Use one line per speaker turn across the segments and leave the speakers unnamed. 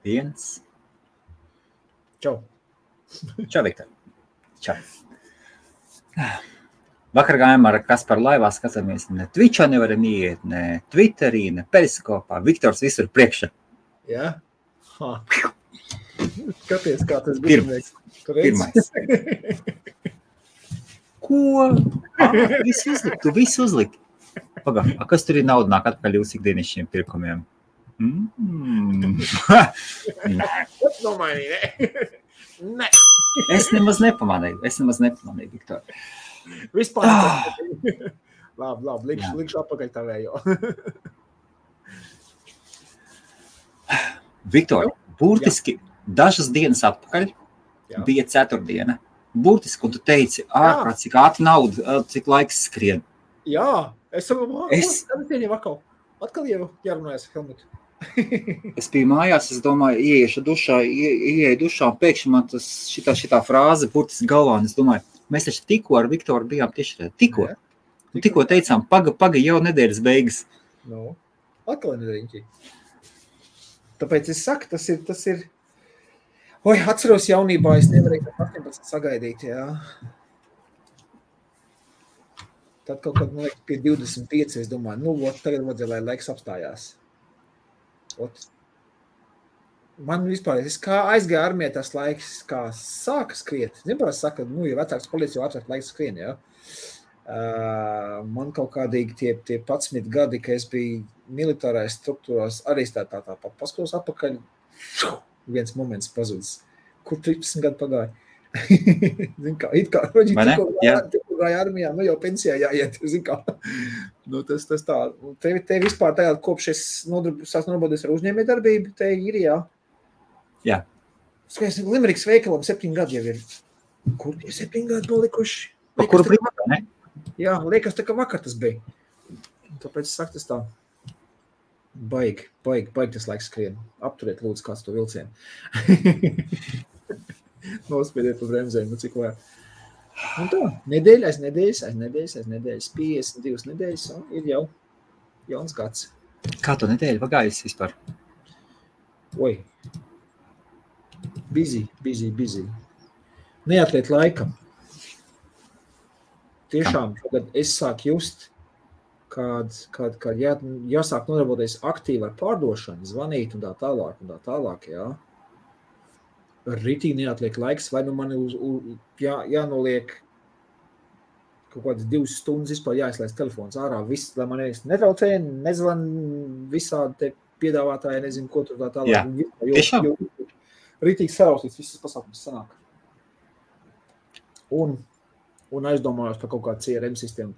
1.
Čau.
Čau, Viktor. Čau. Vakar gājām ar Kasparu laivā, skatāmies, ne Twitchā nevaram iet, ne Twitterī, ne Periskopā. Viktors visur priekšā.
Jā? Skaties, kā tas bija.
Pirmais. Ko? Tu visu uzliki. Pagā, kas tur ir nauda nāk atpakaļ jūsu ikdienišķiem pirkumiem?
Tas nomainīja, ne?
Es nemaz nepamanīju, Viktor.
Vispār. Labi, likšu atpakaļ tavējo.
Viktor, burtiski dažas dienas atpakaļ bija ceturtdiena. Burtiski, un tu teici, ārprāt, cik ātri nauda, cik laiks skrien.
Jā, es atkal jau jārunājas Helmutu.
Es biju mājās, es domāju, ieeju dušā, un pēkšņi man tas šitā frāze burtiski galvā, un es domāju, mēs taču tikko ar Viktoru bijām tiešām. Tikko teicām, paga jau nedēļas beigas.
Atkal nedēļiņķi. Tāpēc es saku, tas ir... Oi, atceros jaunībā, es nevarēju 18 sagaidīt, jā. Tad kaut kad, man liekas, pie 25, es domāju, tagad vajadzēja, lai laiks apstājās. Man vispār, es kā aizgāju armijā tas laiks, kā sāka skriet. Neparasti saka, ja vecāks policija, jo vecāks laiks skrien, jā. Man kaut kādīgi tie 11 gadi, ka es biju militārais struktūrās, arī tā paskatos atpakaļ, viens moments pazudis. Kur 13 gadu pagāja? Zin kā, tikko gāja armijā, jau pensijā jāiet, zin kā. Tas tā. Te vispār tagad, kopš es sāks nodarboties ar uzņēmējdarbību, te ir, jā.
Jā.
Skaties, Limeriks veikalam 7 gadi jau ir. Kur tie 7 gadi palikuši?
Kuru brīvā, ne?
Jā, liekas, tā kā vakar tas bija. Tāpēc es saku, tas tā. Baigi tas laiks skrien. Apturiet, lūdzu, kāds to vilcienu. Nospiediet pa bremzēm, cik vajag. Un tā, nedēļas, 52 nedēļas, ir jau jauns gads.
Kā tu nedēļu pagājis vispār?
Oi. Busy. Neatliet laikam. Tiešām, kad es sāku just, kad jāsāk nodarboties aktīvi ar pārdošanu, zvanīt un tā tālāk, jā. Ritīgi neatliek laiks, vai man jānoliek kaut kādas 2 stundas vispār jāizlaist telefons ārā, viss, lai man netraucē, nezvan visādi te piedāvātāji, nezinu, ko tur tā tālāk.
Jā, tiešām.
Ritīgi saraustīts, visas pasākums sanāk. Un aizdomājos par kaut kādu CRM sistēmu.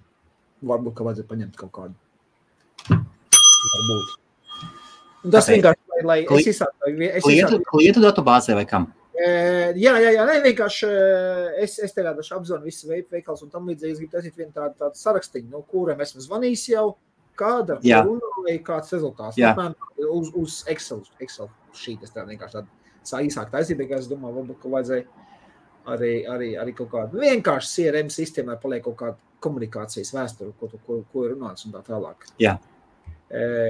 Varbūt, ka vajadzētu paņemt kaut kādu. Varbūt. Un tas vienkārši, lai es izsāku...
Klientu datubāzē vai kam?
Jā, vienkārši es te rādašu apzvanu visu veikals un tam līdzīgi es gribu taisīt vienu tādu sarakstiņu, kuram esmu zvanījis jau, kāda runāja, kāds rezultāts. Uz Excel šīt, es tā vienkārši tādu īsāk taisīt, bet es domāju, varbūt, ka vajadzēja arī kaut kādu vienkārši CRM sistēmai paliek kaut kādu komunikācijas vēsturi, ko ir runāts un tā tālāk.
Jā.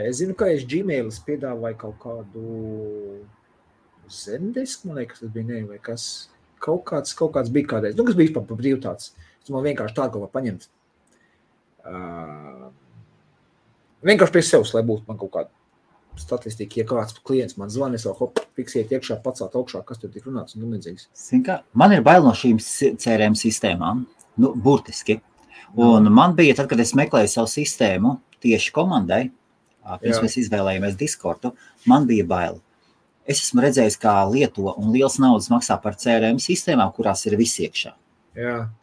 Es zinu, ka es Gmailis piedāvāju kaut kādu Zendesk, man liekas, tas bija vai kas. Kaut kāds bija kādreiz. Kas bija par brīvu tāds. Es man vienkārši tādu kaut kā paņemt. Vienkārši pie sevs, lai būtu man kaut kāda statistika, ja kāds klients man zvana, es vēl fiksiet iekšā, pacelt augšā, kas tur tik runāts un līdzīgs.
Man ir bail no šīm CRM sistēmām, burtiski. Un man bija, tad, kad es meklēju savu sistēmu tieši komandai, pirms mēs izvēlējāmies Discordu, man bija bail. Es esmu redzējis, kā lieto un liels naudas maksā par CRM sistēmām, kurās ir viss iekšā.
Jā.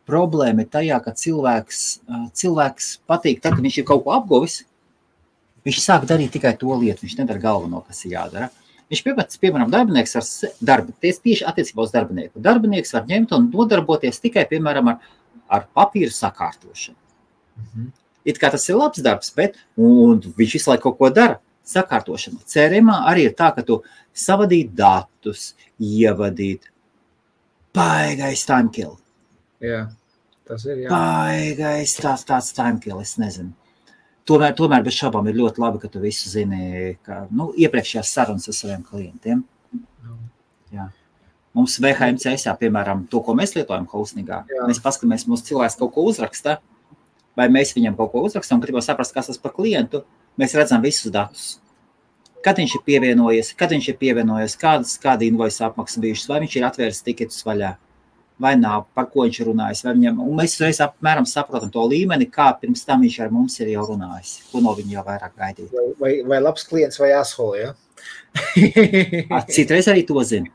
Problēma ir tajā, ka cilvēks patīk, tad, kad viņš ir kaut ko apguvis, viņš sāk darīt tikai to lietu, viņš nedara galveno, kas ir jādara. Viņš piemēram, darbinieks tieši attiecībā uz darbinieku. Darbinieks var ņemt un nodarboties tikai, piemēram, ar papīru sakārtošanu.
Mhm.
It kā tas ir labs darbs, bet un viņš visu laiku kaut ko dara. Sakārtošana. CRM-ā arī ir tā, ka tu savadīt datus, ievadīt. Baigais time kill.
Jā, tas ir, jā.
Baigais tāds time kill, es nezinu. tomēr bez šaubām ir ļoti labi, ka tu visu zini, ka, iepriekšējās sarunas ar saviem klientiem. Jā. Mums VHMCS, piemēram, to, ko mēs lietojam hostingā, mēs paskatāmies, mūsu cilvēks kaut ko uzraksta, vai mēs viņam kaut ko uzrakstam, gribam saprast, kas tas par klientu, mēs redzam visus datus. Kad viņš ir pievienojies, kāda invoice apmaksa bijušas, vai viņš ir atvēris tiketus vaļā, vai nav, par ko viņš ir runājis, vai viņam, un mēs reiz apmēram saprotam to līmeni, kā pirms tam viņš ar mums ir jau runājis, ko no viņa jau vairāk gaidīt.
Vai labs klients vai asshole, ja?
Citreiz arī to zina,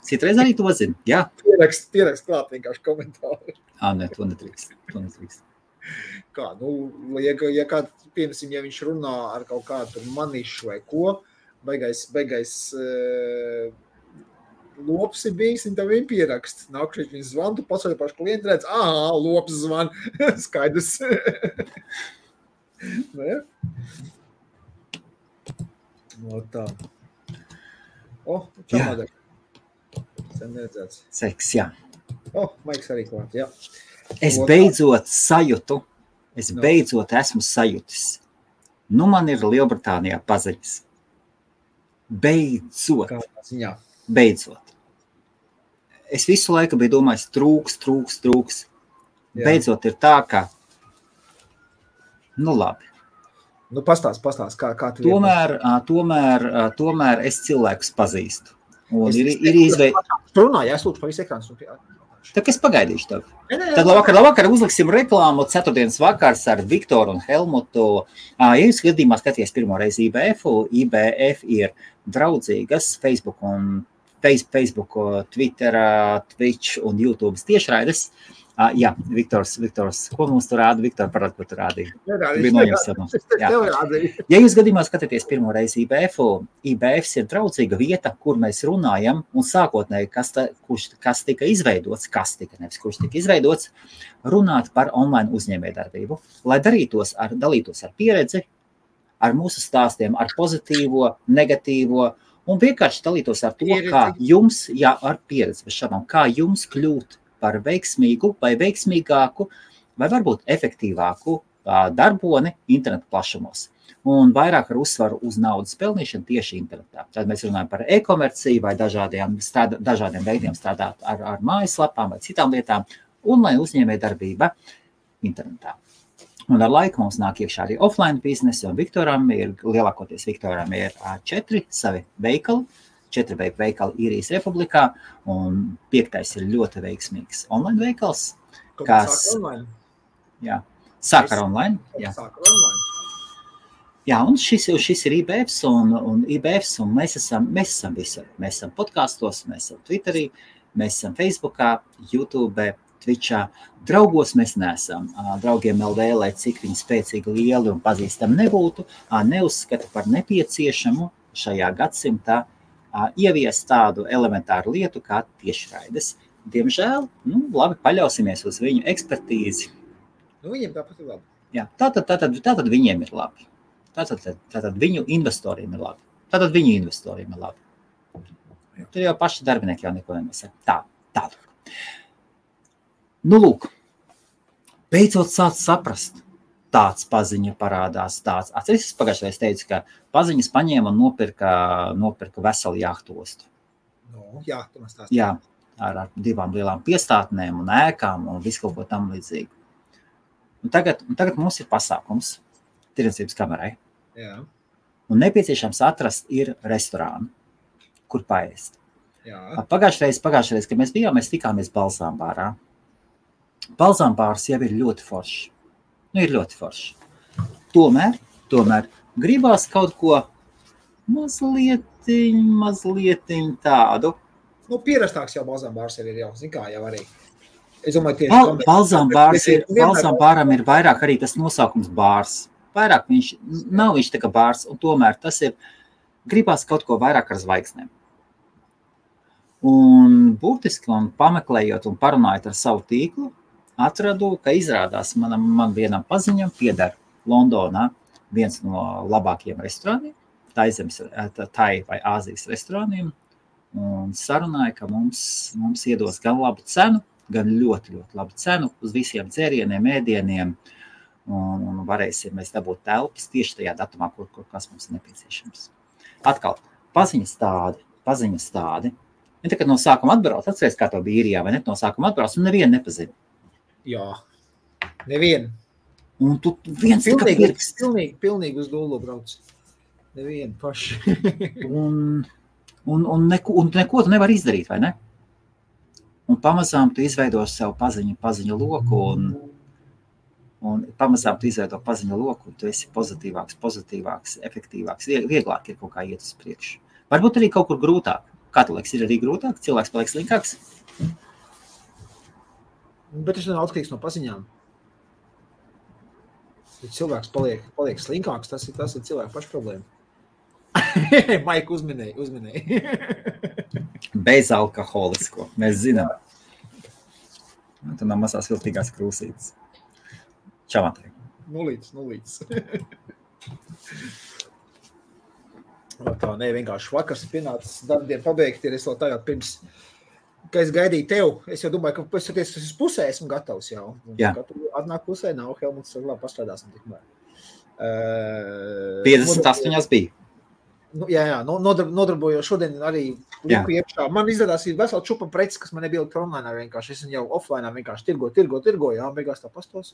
jā.
Pierakst klāt vienkārši komentāru.
Ne, to netrīkst.
Kā, ja kāds, piemēram, ja viņš runā ar kaut kādu manišu vai ko, beigais lops ir bijis, un tev viņa pierakst. Nākušies viņa zvan, tu pasaļ pašu klientu redz, lops zvan, skaidrs. Ne? No tā. Čamadē. Sen neredzēts.
Seks, jā.
Maiks arī klāt, jā.
Es beidzot esmu sajutis. Man ir Lielbritānijā paziņas. Beidzot. Es visu laiku biju domājis, trūks. Jā. Beidzot ir tā, ka, labi.
Pastāst, kā tu
tomēr es cilvēkus pazīstu. Un
runā, jā, es lūdzu pa visu ekrānu.
Tā kā es pagaidīšu tev. Tad labvakar uzliksim reklāmu ceturtdienas vakars ar Viktoru un Helmutu. Ja jūs gadījumā skaties pirmo reizi IBF ir draudzīgas Facebook, Twitter, Twitch un YouTube tiešraides. Jā, Viktors, ko mums tur rāda? Viktor, parād, ko tu rādīji. Ja jūs gadījumā skatāties pirmo reizi IBFs ir draudzīga vieta, kur mēs runājam, un sākotnēji, kas tika izveidots, runāt par online uzņēmējdarbību, lai dalītos ar pieredzi, ar mūsu stāstiem, ar pozitīvo, negatīvo, un vienkārši dalītos ar to, kā jums, ar pieredzi, bez šādām, kā jums kļūt par veiksmīgu vai veiksmīgāku vai varbūt efektīvāku darboni internetu plašumos. Un vairāk ar uzsvaru uz naudas pelnīšanu tieši internetā. Tad mēs runājam par e-komerciju vai dažādiem veidiem strādāt ar mājaslapām vai citām lietām, un lai uzņēmējdarbība internetā. Un ar laiku mums nāk iekšā arī offline biznesi, un lielākoties Viktoram ir 4 savi veikali. 4 veikali Īrijas Republikā, un 5. ir ļoti veiksmīgs online veikals, kas sāk ar online. Jā, un šis ir IBFs, un IBFs, un mēs esam visur. Mēs esam podkastos, mēs esam Twitterī, mēs esam Facebookā, YouTube, Twitchā. Draugos mēs neesam. Draugiem LV, lai cik viņi spēcīgi, lieli un pazīstami nebūtu, neuzskata par nepieciešamu šajā gadsimtā ievies tādu elementāru lietu kā tiešraides. Diemžēl, labi, paļausimies uz viņu ekspertīzi.
Viņiem tāpat ir labi.
Jā, tātad viņiem ir labi. Tātad viņu investoriem ir labi. Tur jau paši darbinieki jau neko nenosaka. Tālāk. Lūk, beidzot sāc saprast. Tāds paziņa parādās, tāds. Es pagājušajā teicu, ka paziņas paņēma un nopirka veselu jahtostu.
Tu man stāstīji.
Jā, ar 2 lielām piestātnēm un ēkām un visu kaut ko tam līdzīgi. Un tagad mums ir pasākums tirdzniecības kamerai.
Jā.
Un nepieciešams atrast ir restorānu, kur paēst.
Jā.
Pagājušajā reizē, kad mēs bijām, mēs tikāmies Balzāmbārā. Balzāmbārs jau ir ļoti foršs. Ir ļoti forši. Tomēr gribās kaut ko mazliet tādu.
Pierastāks jau Balzāmbārs ir jau, zin kā jau arī. Es domāju, tieši
Balzāmbāram ir vairāk arī tas nosaukums bārs. Vairāk nav viņš tā kā bārs, un tomēr tas ir, gribās kaut ko vairāk ar zvaigznēm. Un būtiski, un pameklējot un parunājot ar savu tīklu, atradu, ka izrādās man vienam paziņam pieder Londonā viens no labākajiem restorāniem, tai vai Āzijas restorāniem, un sarunāja, ka mums iedos gan labu cenu, gan ļoti, ļoti labu cenu uz visiem dzērieniem, ēdieniem, un varēsim mēs dabūt telpas tieši tajā datumā, kur kas mums ir nepieciešams. Atkal, paziņas tādi. Ja tagad no sākuma atbrauc, atceries, kā to bija īrijā, vai ne? No sākuma atbrauc, un nevienu nepazina.
Jā, nevienu.
Un tu viens tikai pirks.
Pilnīgi uz dolu brauc. Nevienu paši.
un neko tu nevar izdarīt, vai ne? Un pamazām tu izveido sev paziņu loku, un pamazām tu izveido paziņu loku, un tu esi pozitīvāks, efektīvāks, vieglāk ir kaut kā iet uz priekšu. Varbūt arī kaut kur grūtāk. Kā tu liekas, ir arī grūtāk? Cilvēks paliek slinkāks?
Bet tas nav atkarīgs no paziņām. Ja cilvēks paliek slinkāks, tas ir cilvēku pašu problēma. Maika uzminēja.
Bezalkoholisko, mēs zinām. Tu nav mazās viltīgās krūsītes. Čau, Matei.
Nulīts. Tā, vienkārši vakars pienācis darbdien pabeigt, ir es vēl tagad pirms, ka es gaidīju tev. Es jau domāju, ka es pusē esmu gatavs jau.
Jā.
Atnāk pusē, nav Helmuts, labi pastrādāsim tikmēr.
58 bija.
Jā, nodarbojos šodien arī liku iekšā. Man izrādās ir vesela čupa preces, kas man nebija online vienkārši. Es jau offline vienkārši tirgo, jā, beigās tā pastos.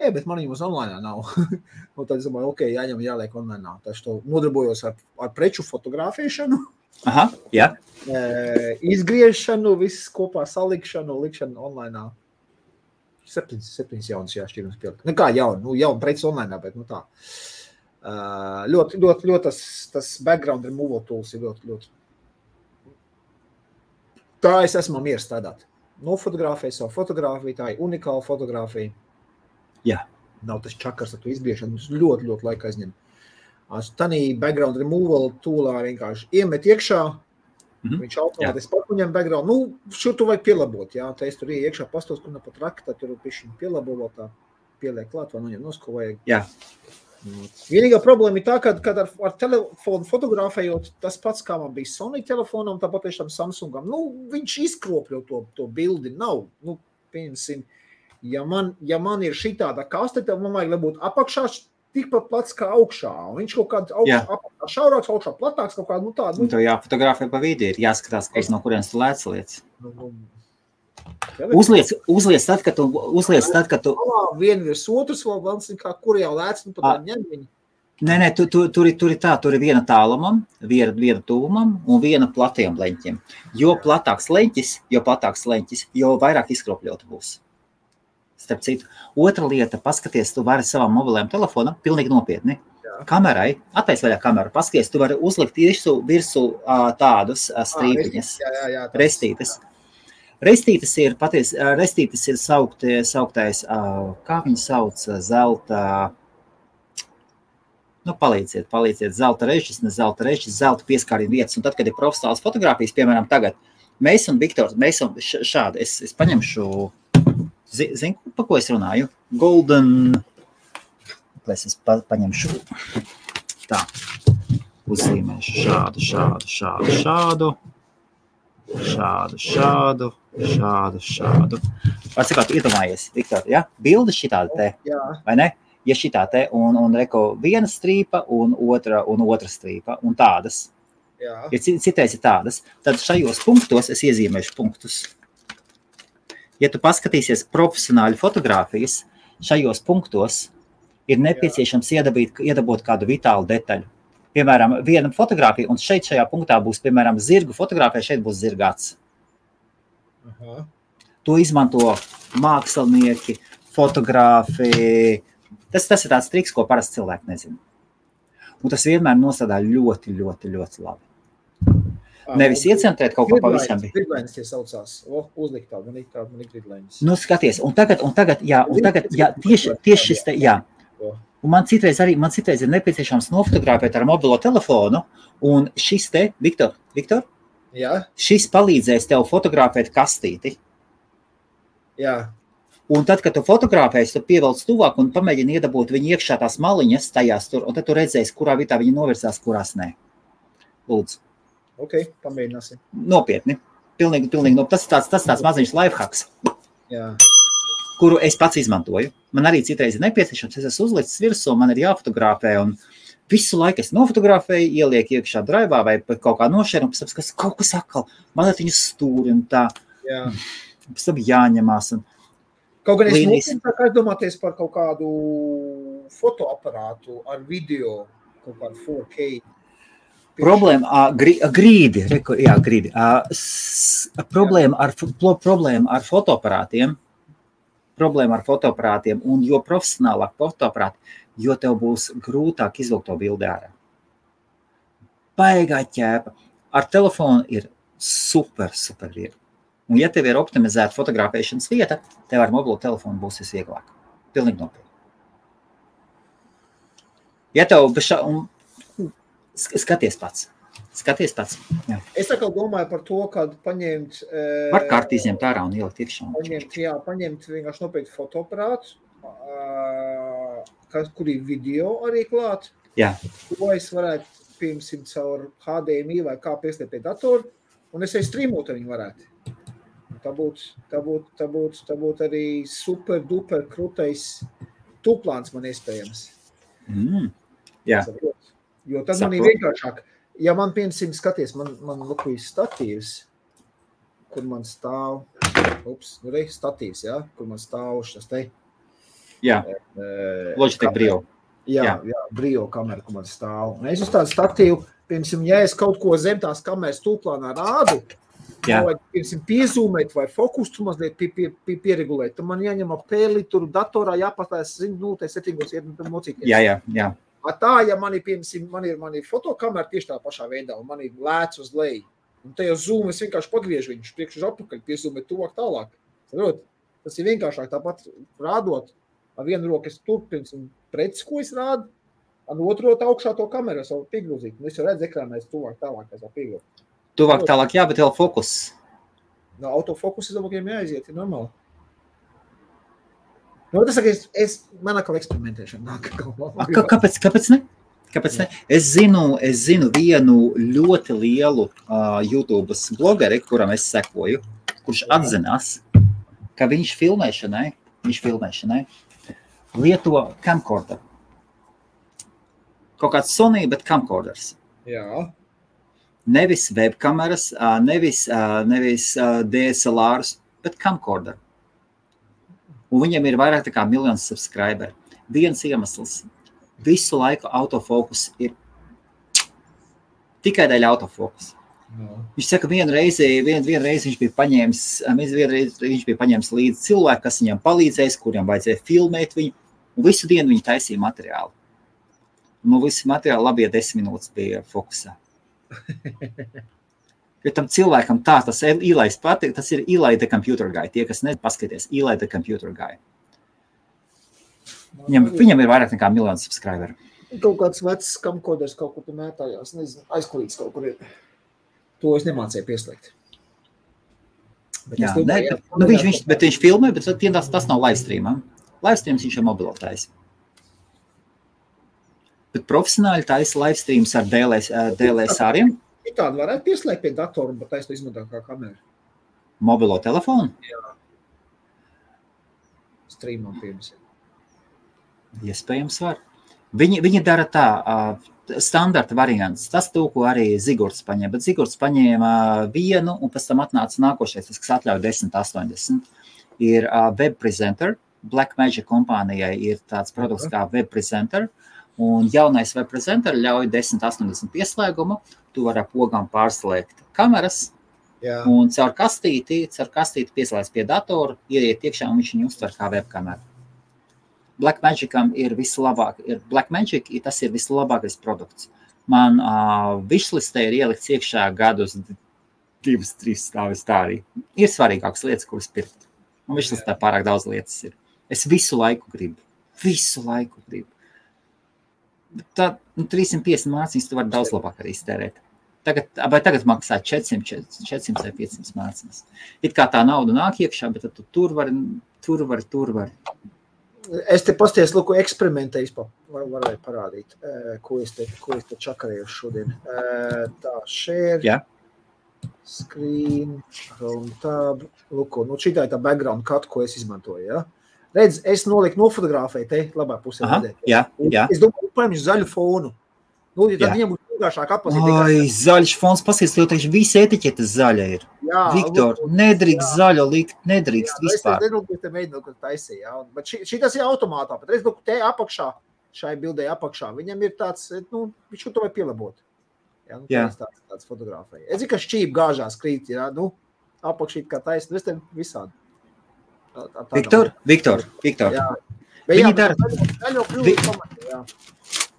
Bet man viņam uz online nav. Un tad es domāju, jāņem jāliek online. Taču to nodarbojos ar preču fotografēšanu.
Aha, jā.
Izgriešanu, viss kopā salikšanu, likšanu online. 7 jaunas jāšķirums pielikt. Kā jauna preces online, bet tā. Ļoti tas background removal tools ir ļoti. Tā es esmu mieru strādāt. Nofotografēju savu fotografiju, tā ir unikāla fotografija.
Jā.
Nav tas čakars ar to izbiešanu, mums ļoti laika aizņem. Tanī background removal toolā vienkārši iemet iekšā, viņš automātiski pakuņem background. Šur tu vajag pielabot, jā, tā es tur iekšā pastos, kur pat rakta, tur pišķiņ pielabo, tā pieliek klāt, vai noņem nos, ko vajag.
Jā.
Vienīgā problēma ir tā, kad ar telefonu fotografējot tas pats, kā man bija Sony telefonam, tāpat tiešām Samsungam. Viņš izkropļo to bildi, nav. Pieņemsim, ja man ir šitāda kaste, tad man vajag būt apakšā tikpat plats kā augšā. Un viņš kaut kāds apakšā šaurāks, augšā platāks, kaut kādu tādu.
Tev jāfotografē pa vidi, ir jāskatās, no kurienes tu lēc lietas. Uzliec tad, kad tu...
Vienu virs otrs vēl glans, kur jau lēc, pat ņem viņu.
Nē, tur ir viena tālumam, viena tuvumam un viena platiem leņķiem. Jo platāks leņķis, jo vairāk izkropļota būs. Starp citu. Otra lieta, paskaties, tu vari savām mobilajām telefonam, pilnīgi nopietni. Kamerai, attais vaļā kameru, paskaties, tu vari uzlikt virsū tādus strīpiņas, restītes. Restītes ir sauktais, kā viņi sauc, zelta, palīdziet, zelta režis, zelta pieskārījuma vietas. Un tad, kad ir profesionāls fotogrāfijas, piemēram, tagad, mēs un Viktors, šādi, es paņemšu, zinu, pa ko es runāju? Golden, es paņemšu tā, uzzīmēšu šādu. Atsakāt, iedomājies, Viktor, ja? Bilde šitāda te, vai ne? Ja šitā te, un reko viena strīpa un otra strīpa, un tādas. Ja citais ir tādas, tad šajos punktos es iezīmēšu punktus. Ja tu paskatīsies profesionāļu fotogrāfijas, šajos punktos ir nepieciešams iedabot kādu vitālu detaļu. Piemēram, viena fotogrāfija, un šajā punktā būs, piemēram, zirgu fotogrāfija, šeit būs zirgāts. To izmanto mākslinieki, fotogrāfi. Tas ir tāds triks, ko parasti cilvēki nezina. Un tas vienmēr nosādā ļoti labi. Nevis iecentrēt kaut ko pavisam.
Gridlainas tie saucās. Uzlikt tādu, man ir gridlainas.
Skaties, un tagad, tieši šis te, jā. Un man citreiz ir nepieciešams nofotografēt ar mobilo telefonu, un šis te, Viktor, šis palīdzēs tev fotografēt kastīti.
Jā.
Un tad, kad tu fotografēsi, tu pievelc tuvāk un pamēģini iedabūt viņu iekšā tās maliņas tajās tur, un tad tu redzēsi, kurā vietā viņi novirzās, kurās nē. Lūdzu.
Pamēģināsim.
Nopietni. Pilnīgi. Tas ir tāds maziņš lifehacks.
Jā.
kuru es pats izmantoju. Man arī citreiz ir nepieciešams, es esmu uzlicis virsū, man ir jāfotografē, un visu laiku es nofotografēju, ielieku iekšā draivā vai kaut kā nošēru, un pēc tam, kas kaut kas atkal, man ar viņu stūri un tā, pēc tam jāņemās. Un
kaut gan es nopietnāk aizdomāties par kaut kādu fotoaparātu ar video, kaut kādu 4K.
Problēma, grīdi. Problēma ar fotoaparātiem, un jo profesionālāk fotoaparāti, jo tev būs grūtāk izvilkt to bildi ārā. Baigā ķēpa. Ar telefonu ir super viegli. Un ja tev ir optimizēta fotografēšanas vieta, tev ar mobilo telefonu būs visvieglāk. Pilnīgi nopietni. Ja tev skaties pats. Jā.
Es atkal domāju par to, kad paņemt...
Var kārtī izņemt ārā un ielikt iekšā.
Paņemt vienkārši nopietni fotoaparātu, kur ir video arī klāt.
Jā.
Ko es varētu, piemēram, caur HDMI vai kā pieslēgt pie datoru, un es arī streamot viņu varētu. Tā būtu arī super duper krutais tūplāns man iespējams.
Jā.
Jo tad man ir vienkāršāk. Ja man, piemēram, skaties, man lukujas statīvs, kur man stāv, statīvs, jā, kur man stāv šas te.
Jā, Logitech Brio.
Jā, Brio kamera, kur man stāv. Un es uz tādu statīvu, piemēram, ja es kaut ko zem tās kameras tūplānā rādu, vai, piemēram, piezūmēt vai fokus tu mazliet pieregulēt, tad man jāņem apēli, tur datorā jāpastās, setingos iet mocīties.
Jā.
Tā, ja man ir mani fotokamera tieši tā pašā veidā, un man ir lēts uz leju, un te jau zoom, es vienkārši pagriežu viņu priekš uz apakaļ, piezūmēt tuvāk tālāk. Tas ir vienkāršāk tāpat rādot, ar vienu roku es tur, piemēram, preces, ko es rādu, ar otru augšā to kameru, es varu piegrūzīt, un es jau redzu ekrānā, es tuvāk tālāk, es varu piegrūzīt.
Tuvāk tālāk, jā, bet vēl fokus.
No, autofokus, es domāju, ka jāaiziet, ir normāli. Tas saka, man atkal eksperimentēšana nāk.
Kāpēc ne? Es zinu vienu ļoti lielu YouTube blogeri, kuram es sekoju, kurš atzinās, ka viņš filmēšanai lieto camcorder. Kaut kāds Sony, bet camcorders.
Jā.
Nevis webkameras, nevis DSLRs, bet camcorder. Un viņam ir vairāk tā kā miljons subscriberi. Viens iemesls. Visu laiku autofokus ir tikai dēļ autofokus.
No.
Viņš saka, vienu reizi viņš bija paņēmis līdzi cilvēku, kas viņam palīdzēs, kuriem vajadzēja filmēt viņu, un visu dienu viņi taisīja materiālu. Un visu materiālu labie 10 minūtes bija fokusā. Jo tam cilvēkam tas Eli patīk, tas ir Eli the Computer Guy. Tie, kas nepaskaties, Eli the Computer Guy. Viņam ir vairāk nekā miljonu subscriberu.
Kaut kāds vecs camcorders kaut kur mētājās, nezinu, aizkulīts kaut kur ir. To es nemācēju pieslēgt. Bet
viņš filmē, bet tas nav livestreamā. Livestreams viņš ir mobilotājs. Bet profesionāli taisa livestreams ar DLSR-iem.
Tādu varētu pieslēgt pie datoru un pat taisnu izmantot kā kameru.
Mobilo telefonu?
Jā. Streamam, piemēram.
Iespējams var. Viņi dara tā, standarta variants. Tas to, ko arī Zigurds paņēma. Bet Zigurds paņēma vienu un pēc tam atnāca nākošais, tas, kas atļauj 1080. Ir Web Presenter. Blackmagic kompānijai ir tāds produkts kā Web Presenter. Un jaunais Web Presenter ļauj 1080 pieslēgumu. Tu vari ar pogām pārslēgt kameras.
Jā.
Un caur kastīti pieslēdz pie datoru, ieiet iekšā un viņš viņu uztver kā webkameru. Blackmagicam ir vislabāk. Blackmagic, tas ir vislabākais produkts. Man wishlistē ir ielikts iekšā gadus 2-3 stāvis tā arī. Ir svarīgākas lietas, kuras pirkt. Un wishlistē pārāk daudz lietas ir. Es visu laiku gribu. Tad 350 mācības tu vari daudz labāk arī iztērēt. Tagad maksā 400 vai 500 mācības. It kā tā nauda nāk iekšā, bet tu tur vari.
Es te pasties, lūku, eksperimentējis, varēju parādīt, ko es te čakarēju šodien. Tā, share, screen, round tab, lūku, šitā ir tā background cut, ko es izmantoju, ja? Redz, es noliku nofotografēju te labā pusē.
Jā.
Es domāju, paņemšu zaļu fonu. Nu, ja tad viņam būs vienkāršāk atpazīt.
Ai, zaļš fons, pasies, jo taču visi etiķetes zaļa ir. Jā, Viktor, nedrīkst zaļo likt, nedrīkst vispār.
Es nezinu, te mēģinu, ka taisīja, jā. Bet šitas ir automātā, bet redz, te apakšā, šai bildē apakšā, viņam ir tāds, nu, viņš to vai pielabot. Jā, nu, tāds fotografēja. Es zinu, ka šķīp gāžās krīt, jā, nu, apakšīt kā taisni, es te visādi.
Viktor.
Jā.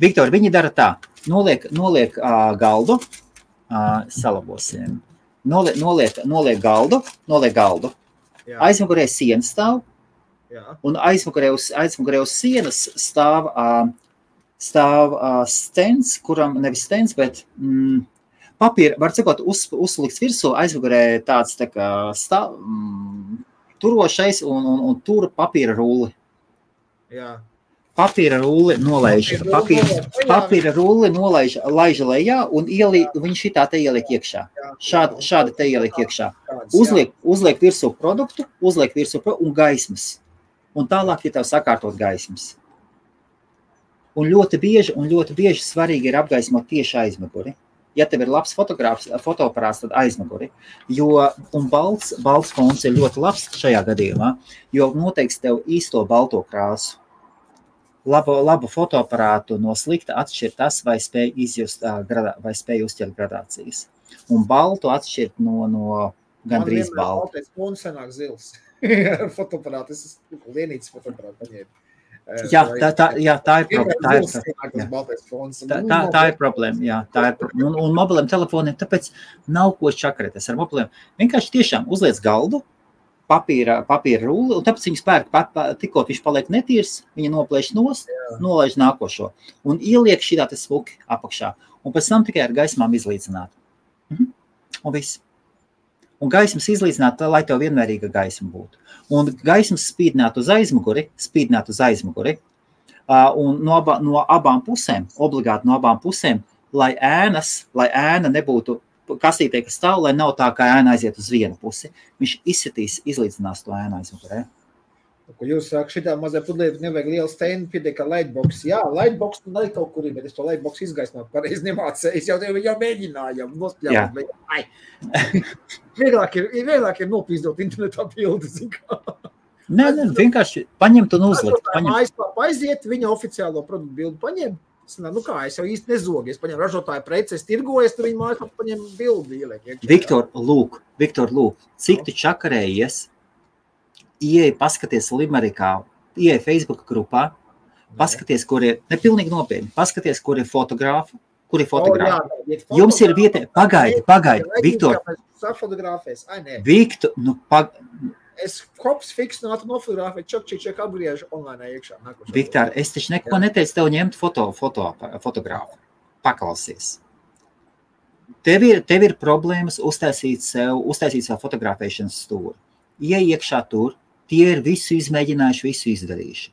Viktor, viņi dara tā. Noliek galdu, salabosim. Noliek galdu. Jā. Aizmugurē sienas stāv. Jā. Un aizmugurē uz sienas stāv stends, kuram nevis stends, bet papīra, var cikot, uzlikts virsū, aizmugurē tāds tā kā turošais un tur papīra rulli.
Jā.
Papīra rulli laiž lejā un viņš šitā te ieliek iekšā. Šādi te ieliek iekšā. Uzliek virsū produktu, un gaismas. Un tālāk ir tev sakārtot gaismas. Un ļoti bieži svarīgi ir apgaismot tieši aizmuguri. Ja tev ir labs fotoaparāts, tad aizmuguri. Un balts fons ir ļoti labs šajā gadījumā, jo noteiks tev īsto balto krāsu. Labu fotoaparātu no slikta atšķir tas, vai spēj izjust, vai spēj uzķert gradācijas. Un baltu atšķirt no gandrīz baltu.
Man vienmēr baltais fons sanāk zils. Fotoaparātu, es lienītas fotoaparātu paņēmu.
Tā ir problēma. Un mobiliem telefoniem tāpēc nav ko čakarēties ar mobiliem. Vienkārši tiešām uzliec galdu, papīra rulli, un tāpēc viņas pērk, tikko viņš paliek netīrs, viņa noplēš nost, nolaiž nākošo. Un ieliek šitā te smuki apakšā. Un pēc tam tikai ar gaismām izlīdzināt. Un viss. Un gaismas izlīdzināt, lai tev vienmērīga gaisma būtu. Un gaismas spīdināt uz aizmuguri, un no abām pusēm, obligāti no abām pusēm, lai ēna nebūtu kastītē, kas stāv, lai nav tā, kā ēna aiziet uz vienu pusi. Viņš izlīdzinās to ēnu aizmugurē.
Ko jūs saka, šitā mazā pudlīte nevajag lielu steinu, pietiek ar lightbox. Jā, lightbox nu arī kaut kur ir, bet es to lightbox izgaismot pareizi nemācēju. Es jau mēģināju, nospļāvot, bet vieglāk ir nopīzdot internetā bildi.
Nē, vienkārši paņemt un uzlikt.
Mājaslāpā aiziet, viņa oficiālo produktu bildi paņem. Nu kā, es jau īsti nezogu. Es paņem ražotāju preci, es tirgoju, tad viņa mājaslāpā paņem bildi ieliek.
Viktor, lūk, cik tu čakarējies? Ieej, paskaties Limerikā, ieej Facebook grupā, paskaties, kur ir, nepilnīgi nopietni, paskaties, kur ir fotogrāfi. Jums ir vieta, pagaidi, Viktor. Viktor,
Es hops fiksnātu nofotogrāfēt, čak apgriežu online iekšā.
Viktor, es taču neko neteicu tev ņemt fotogrāfu. Paklausies. Tev ir problēmas uztaisīt savu fotografēšanas stūri. Ieej iekšā tur, tie ir visu izmēģinājuši, visu izdarījuši.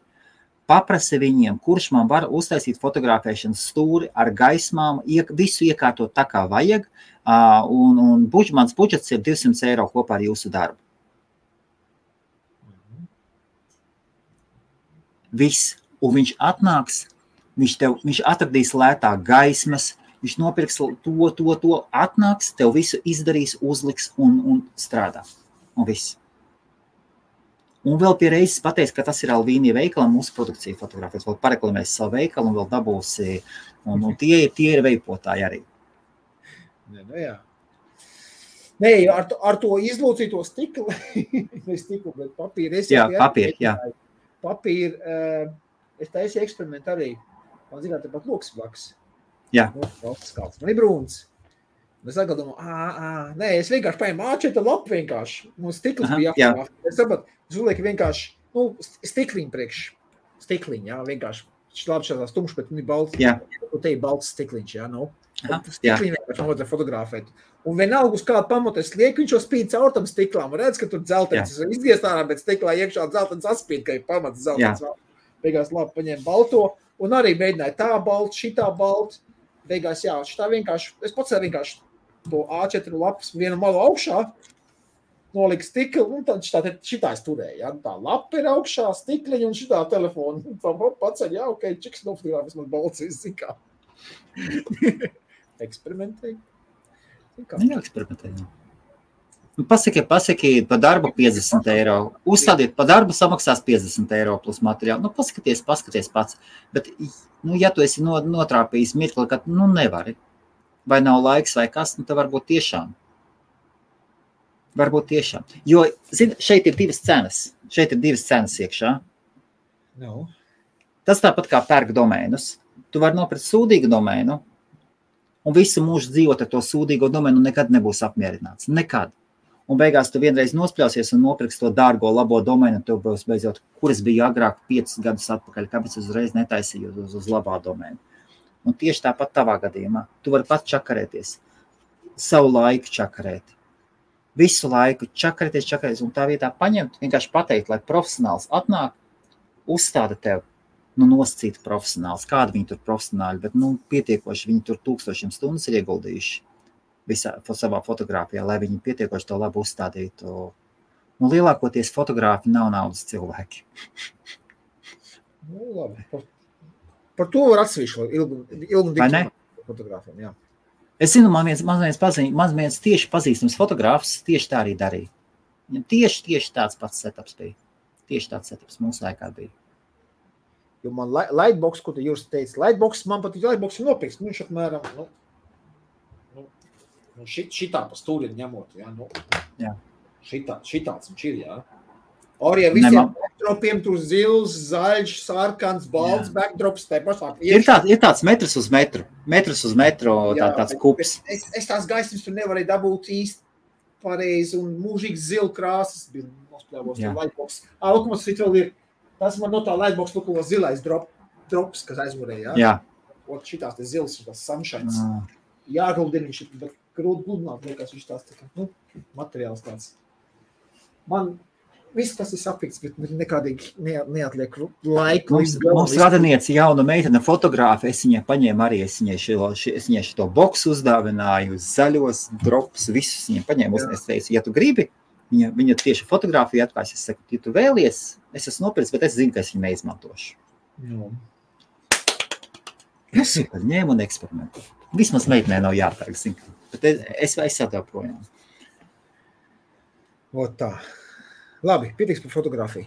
Paprasi viņiem, kurš man var uztaisīt fotografēšanas stūri ar gaismām, visu iekārtot tā, kā vajag, un mans budžets ir 200 eiro kopā ar jūsu darbu. Viss, un viņš atnāks, viņš atradīs lētāk gaismas, viņš nopirks to, atnāks, tev visu izdarīs, uzliks un strādā. Un viss. Un vēl pie reizes pateiks, ka tas ir Alvīnija veikala, mūsu produkcija fotografēs, vēl pareklamēs savu veikalu un vēl dabūsi, un tie ir veipotāji arī.
Jā. Nē, ar to izlūcīto stiklu, bet papīru. Papīru, es taisīju eksperimentu arī. Man zināt, tepat loks blaks.
Jā.
Man ir brūns. Es atkal domāju, es vienkārši paņēmu A4 lapu vienkārši. Mums stikls bija jāpārāk. Es sapratu, es uzlieku vienkārši, stikliņu priekš. Stikliņu, jā, vienkārši. Labi šādās tumšs, bet viņi balts.
Jā.
Te ir balts stikliņš, jā, Stikliņu vienkārši vajadzēja fotografēt. Un vienalga uz kādu pamatu es lieku, viņš jau spīd caur tam stiklām. Redz, ka tur dzeltenis izgiest ārā, bet stiklā iekšā dzeltenis atspīd, ka ir pamats dzeltenis. Beigās labi paņēma balto un arī mēģināja tā balta, šitā balta. Beigās, šitā vienkārši, es pats vienkārši to A4 lapas vienu malu augšā, nolika stikli, un tad šitā es turēju, ja? Tā lapa ir augšā, stikliņa un šitā telefona. Tā paceļ, jā, ok, čiks nofotogrāfis man balcīs, zin kā. Eksperimentēji.
Jā, eksperimentēji. Pasaki pa darbu 50 eiro. Uzstādiet pa darbu samaksās 50 eiro plus materiālu. Paskaties pats. Bet, ja tu esi notrāpījis mirkli, ka nevari, vai nav laiks vai kas, tad varbūt tiešām. Jo, zini, šeit ir divas cenas iekšā.
No.
Tas tāpat kā pērk domēnus. Tu vari nopirkt sūdīgu domēnu, un visu mūžu dzīvot ar to sūdīgo domēnu nekad nebūs apmierināts. Nekad. Un beigās tu vienreiz nospļausies un nopirks to dārgo, labo domēnu, un tev būs beidzot, kuras bija agrāk 5 gadus atpakaļ, kāpēc uzreiz netaisīju uz labā domēnu. Un tieši tāpat tavā gadījumā. Tu vari pat čakarēties. Savu laiku čakarēt. Visu laiku čakarēties, un tā vietā paņemt, vienkārši pateikt, lai profesionāls atnāk, uzstāda tev, nosacīt profesionāls. Kādi viņi tur profesionāļi, bet, pietiekoši, viņi tur 1000 stundas ir ieguldījuši visā savā fotogrāfijā, lai viņi pietiekoši to labi uzstādītu. Lielākoties fotogrāfi nav naudas cilvēki.
Labi. Par to var atsevišķi ilgu fotogrāfiem, jā.
Es zinu, man viens tieši pazīstams fotogrāfs tieši tā arī darīja. Tieši tāds pats setups bija. Tieši tāds setups mūsu laikā bija.
Jo man Lightbox, ko tu jūs teici, Lightbox, man pat Lightbox ir nopirks, viņš apmēram, šitā pa stūri ņemot, jā, šitāds viņš ir, jā. Arī visiem backdropiem tur zils, zaļš, sarkans, balts backdrops, te pašā.
Ir tāds metrs uz metru, tāds kups.
Es tās gaismas tur nevarēju dabūt īsti pareizi un mūžīgi zilu krāsas bija nospļāvos tur Lightbox. Lokumos vēl ir, tas man no tā Lightbox lukavo zilais drops, kas aizmurēja, jā. Ot šitās te zils, šitās sunshines. Jāguldina viņš, bet grūti gludināt, liekas viņš tās tā kā, materiāls tāds. Man viss, kas ir sapīts, bet nekādīgi neatliek laiku.
Mums radinieci jauna meitene fotogrāfa, es viņai paņēmu arī, es viņai šito boksu uzdāvināju, zaļos drops, visus viņai paņēmu, es teicu, ja tu gribi, viņa tieši fotogrāfiju atklājas, es saku, ja tu vēlies, es esmu nopircis, bet es zinu, ka es viņu neizmantošu. Es ņēmu un eksperimentēju. Vismaz meitenē nav jāpērk, zinu, bet es atdevu projām.
Ot tā. Labi, pietiks par fotogrāfiju.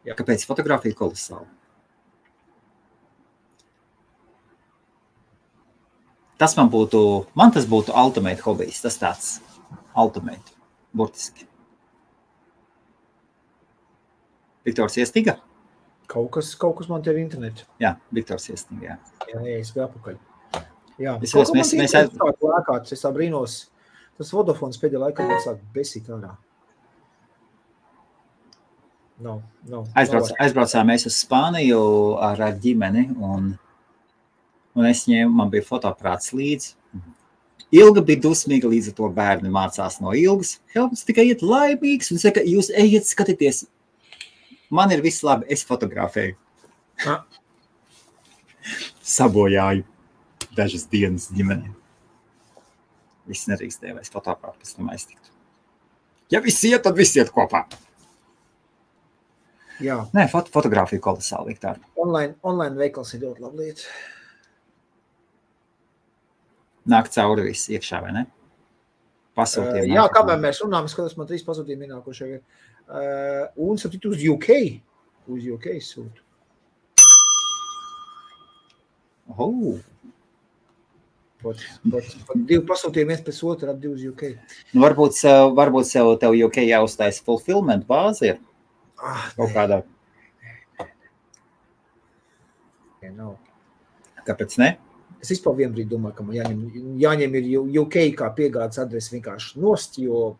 Jā. Kāpēc fotogrāfija kolosāla? Man tas būtu ultimate hobijs, tas tāds ultimate, burtiski. Viktors Iestiga?
Kaut kas man te ir internets.
Jā, Viktors Iestiga, jā.
Jā, es biju apakaļ. Jā,
es
tā brīnos. Tas Vodafons pēdējā laikā man sāk besīt ārā. No.
Aizbraucām mēs uz Spāniju ar ģimeni, un es ņēmu, man bija fotoaprāts līdzi. Ilga bija dusmīga, līdz ar to bērni mācās no Ilgas. Helmuts tikai iet laimīgs un saka, jūs ejiet skatieties. Man ir viss labi, es fotografēju. Sabojāju dažas dienas ģimenē. Viss nerīkstēja, vai es fotoaprātu pēc tam aiztiktu. Ja visi iet, tad visi iet kopā.
Jā.
Nē, fotogrāfija kolosāli, Viktor.
Online veikals ir ļoti laba lieta.
Nāk cauri viss iekšā, vai ne? Pasūtījumi.
Jā, kāpēc mēs runājam, skatos, man 3 pasūtījumi ienākošie ir. Un sapīt uz UK. Uz UK sūtu. Pat 2 pasūtījumi viens pēc otru ap 2 uz UK.
Varbūt tev UK jāuztais fulfillment bāzi ir? Kaut kādā.
Nav.
Kāpēc ne?
Es vispār vienbrīd domāju, ka man jāņem ir UK kā piegādes adresi vienkārši nost, jo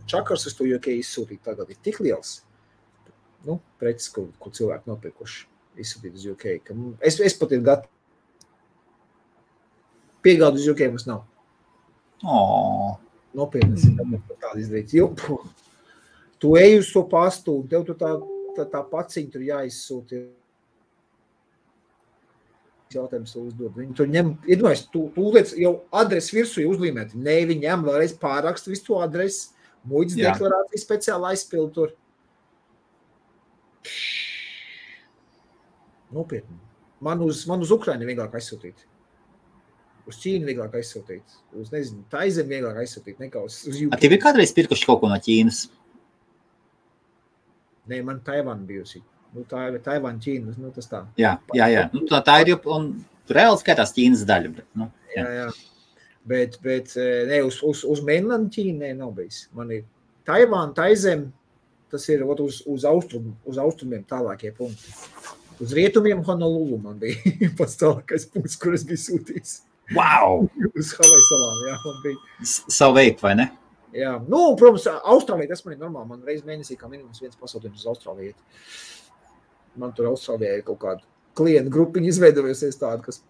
čakars uz to UK izsūtīt tagad ir tik liels. Preces, ko cilvēki nopirkuši izsūtīt uz UK. Es pat ir gatavu. Piegādu uz UK mums nav. Nopietnes ir tāda izdarīt. Tu ej uz to pastu, un tev tu tā paciņa tur jāizsūti. Jautājums to uzdod. Viņi tur ņem, iedomājies, tu liec jau adresi virsū uzlīmēt. Nē, viņi ņem vēlreiz pārakstu visu to adresi, Muitas deklarācijas speciāli aizpildu tur. Nopietni. Man uz Ukraini vieglāk aizsūtīt. Uz Ķīnu vieglāk aizsūtīt. Uz, nezinu, Taizem vieglāk aizsūtīt nekā uz UK.
Tev ir kādreiz pirkuši kaut ko no Ķīnas?
Nē, man Taivāna bijusi. Taivāna, Ķīna, tas tā.
Jā. Tā ir, un reāli skatās Ķīnas daļa. Bet,
jā. Bet ne, uz mainland Ķīnu nav bijis. Man ir Taivāna, Taizem, tas ir uz austrumiem tālākie punkti. Uz rietumiem Honolulu man bija pats tālākais punkts, kur es biju sūtījis.
Wow!
Uz Havaju salām, jā, man bija.
Savu veidu, vai ne?
Jā, protams, Austrālija, tas man ir normāli. Man reiz mēnesī kā minimums viens pasūtījums uz Austrāliju. Man tur Austrālijā ir kaut kāda klientu grupiņa izveidojusies tāda, kas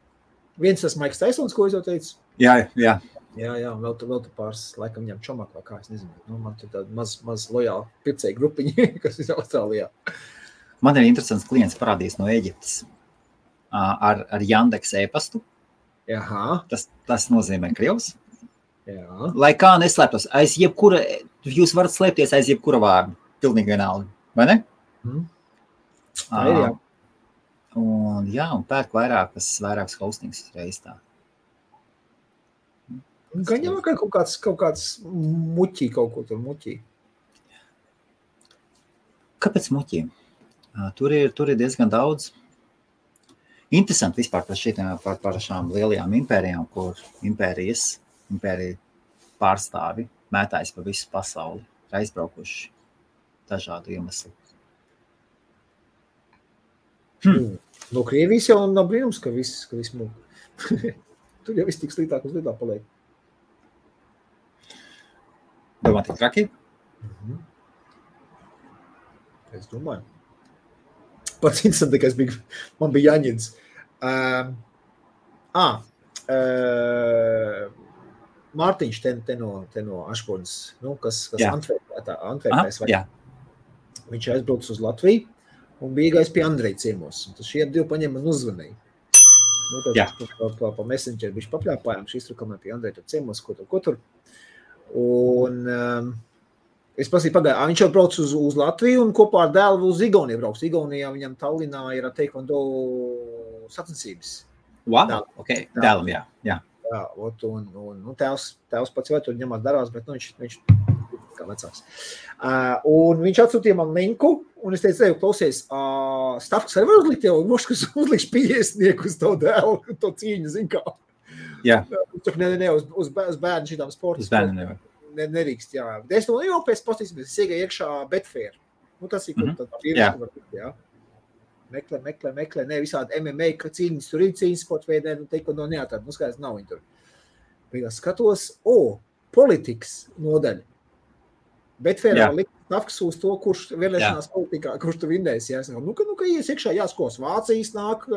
viens tas Maiks Taisons, ko es jau teicu.
Jā.
Jā, vēl tu pāris laikam ņem čomak vai kā, es nezinu. Man tur tāda maz lojāla pircēja grupiņa, kas ir Austrālijā.
Man ir interesants klients parādījis no Eģiptes ar Yandex e-pastu.
Jaha.
Tas nozīmē Krievs.
Jā.
Lai kā neslēptos, jūs varat slēpties aiz jebkura vārdu. Pilnīgi vienalga, vai ne?
Tā ir, jā.
Un pērk vairākas hostings reiz tā.
Gan jau kaut kāds muķī kaut ko tur muķī.
Kāpēc muķī? Tur ir diezgan daudz. Interesanti vispār par šām lielajām impērijām, kur impērija pārstāvi mētājas pa visu pasauli, ir aizbraukuši dažādu iemeslu.
No Krievijas jau nav brīnums, ka viss mūk. Tur jau viss tik slītāk uz lietā paliek.
Domā, tik traki?
Es domāju. Pats interesantākais man bija Jaņins. Mārtiņš te no Ašponas, kas Antverpēs. Viņš aizbrauc uz Latviju un bija gājis pie Andreja ciemos. Tas šie divi paņem man uzvanīja. Pa Messenger viņš papļāpājām, šī iztrukamē pie Andreja tur ciemos, ko tur. Un es prasīju pagāju, viņš jau brauc uz Latviju un kopā ar dēlu uz Igauniju brauc. Igaunijā viņam Tallinā ir taekwondo sacensības.
Wow, ok, dēlam, jā.
Jā, un tēvs pats vai tur ņemās darās, bet viņš kā vecāks. Un viņš atsūtīja man linku, un es teicu, klausies, Stavks arī var uzlikt jau, kas uzlikš 50 uz tavu dēlu, to cīņu, zin kā.
Jā.
Ne, uz bērnu šitām sportas.
Uz bērnu nevar.
Nerīkst, jā. Es to jau pēc postīsimies, es iegāju iekšā Betfair. Tas ir, kur tā pieredze var būt, jā. Meklē, ne visādi MMA, ka cīņas tur ir cīņas sporta veidē, teiko no neatādi, skaidrs nav viņi tur. Beigās skatos, politikas nodaļa. Betfairā likt Stavks uz to, kurš vēlēšanās politikā, kurš tu vinnēs, jā. Ka ies iekšā jāskos, Vācijas nāk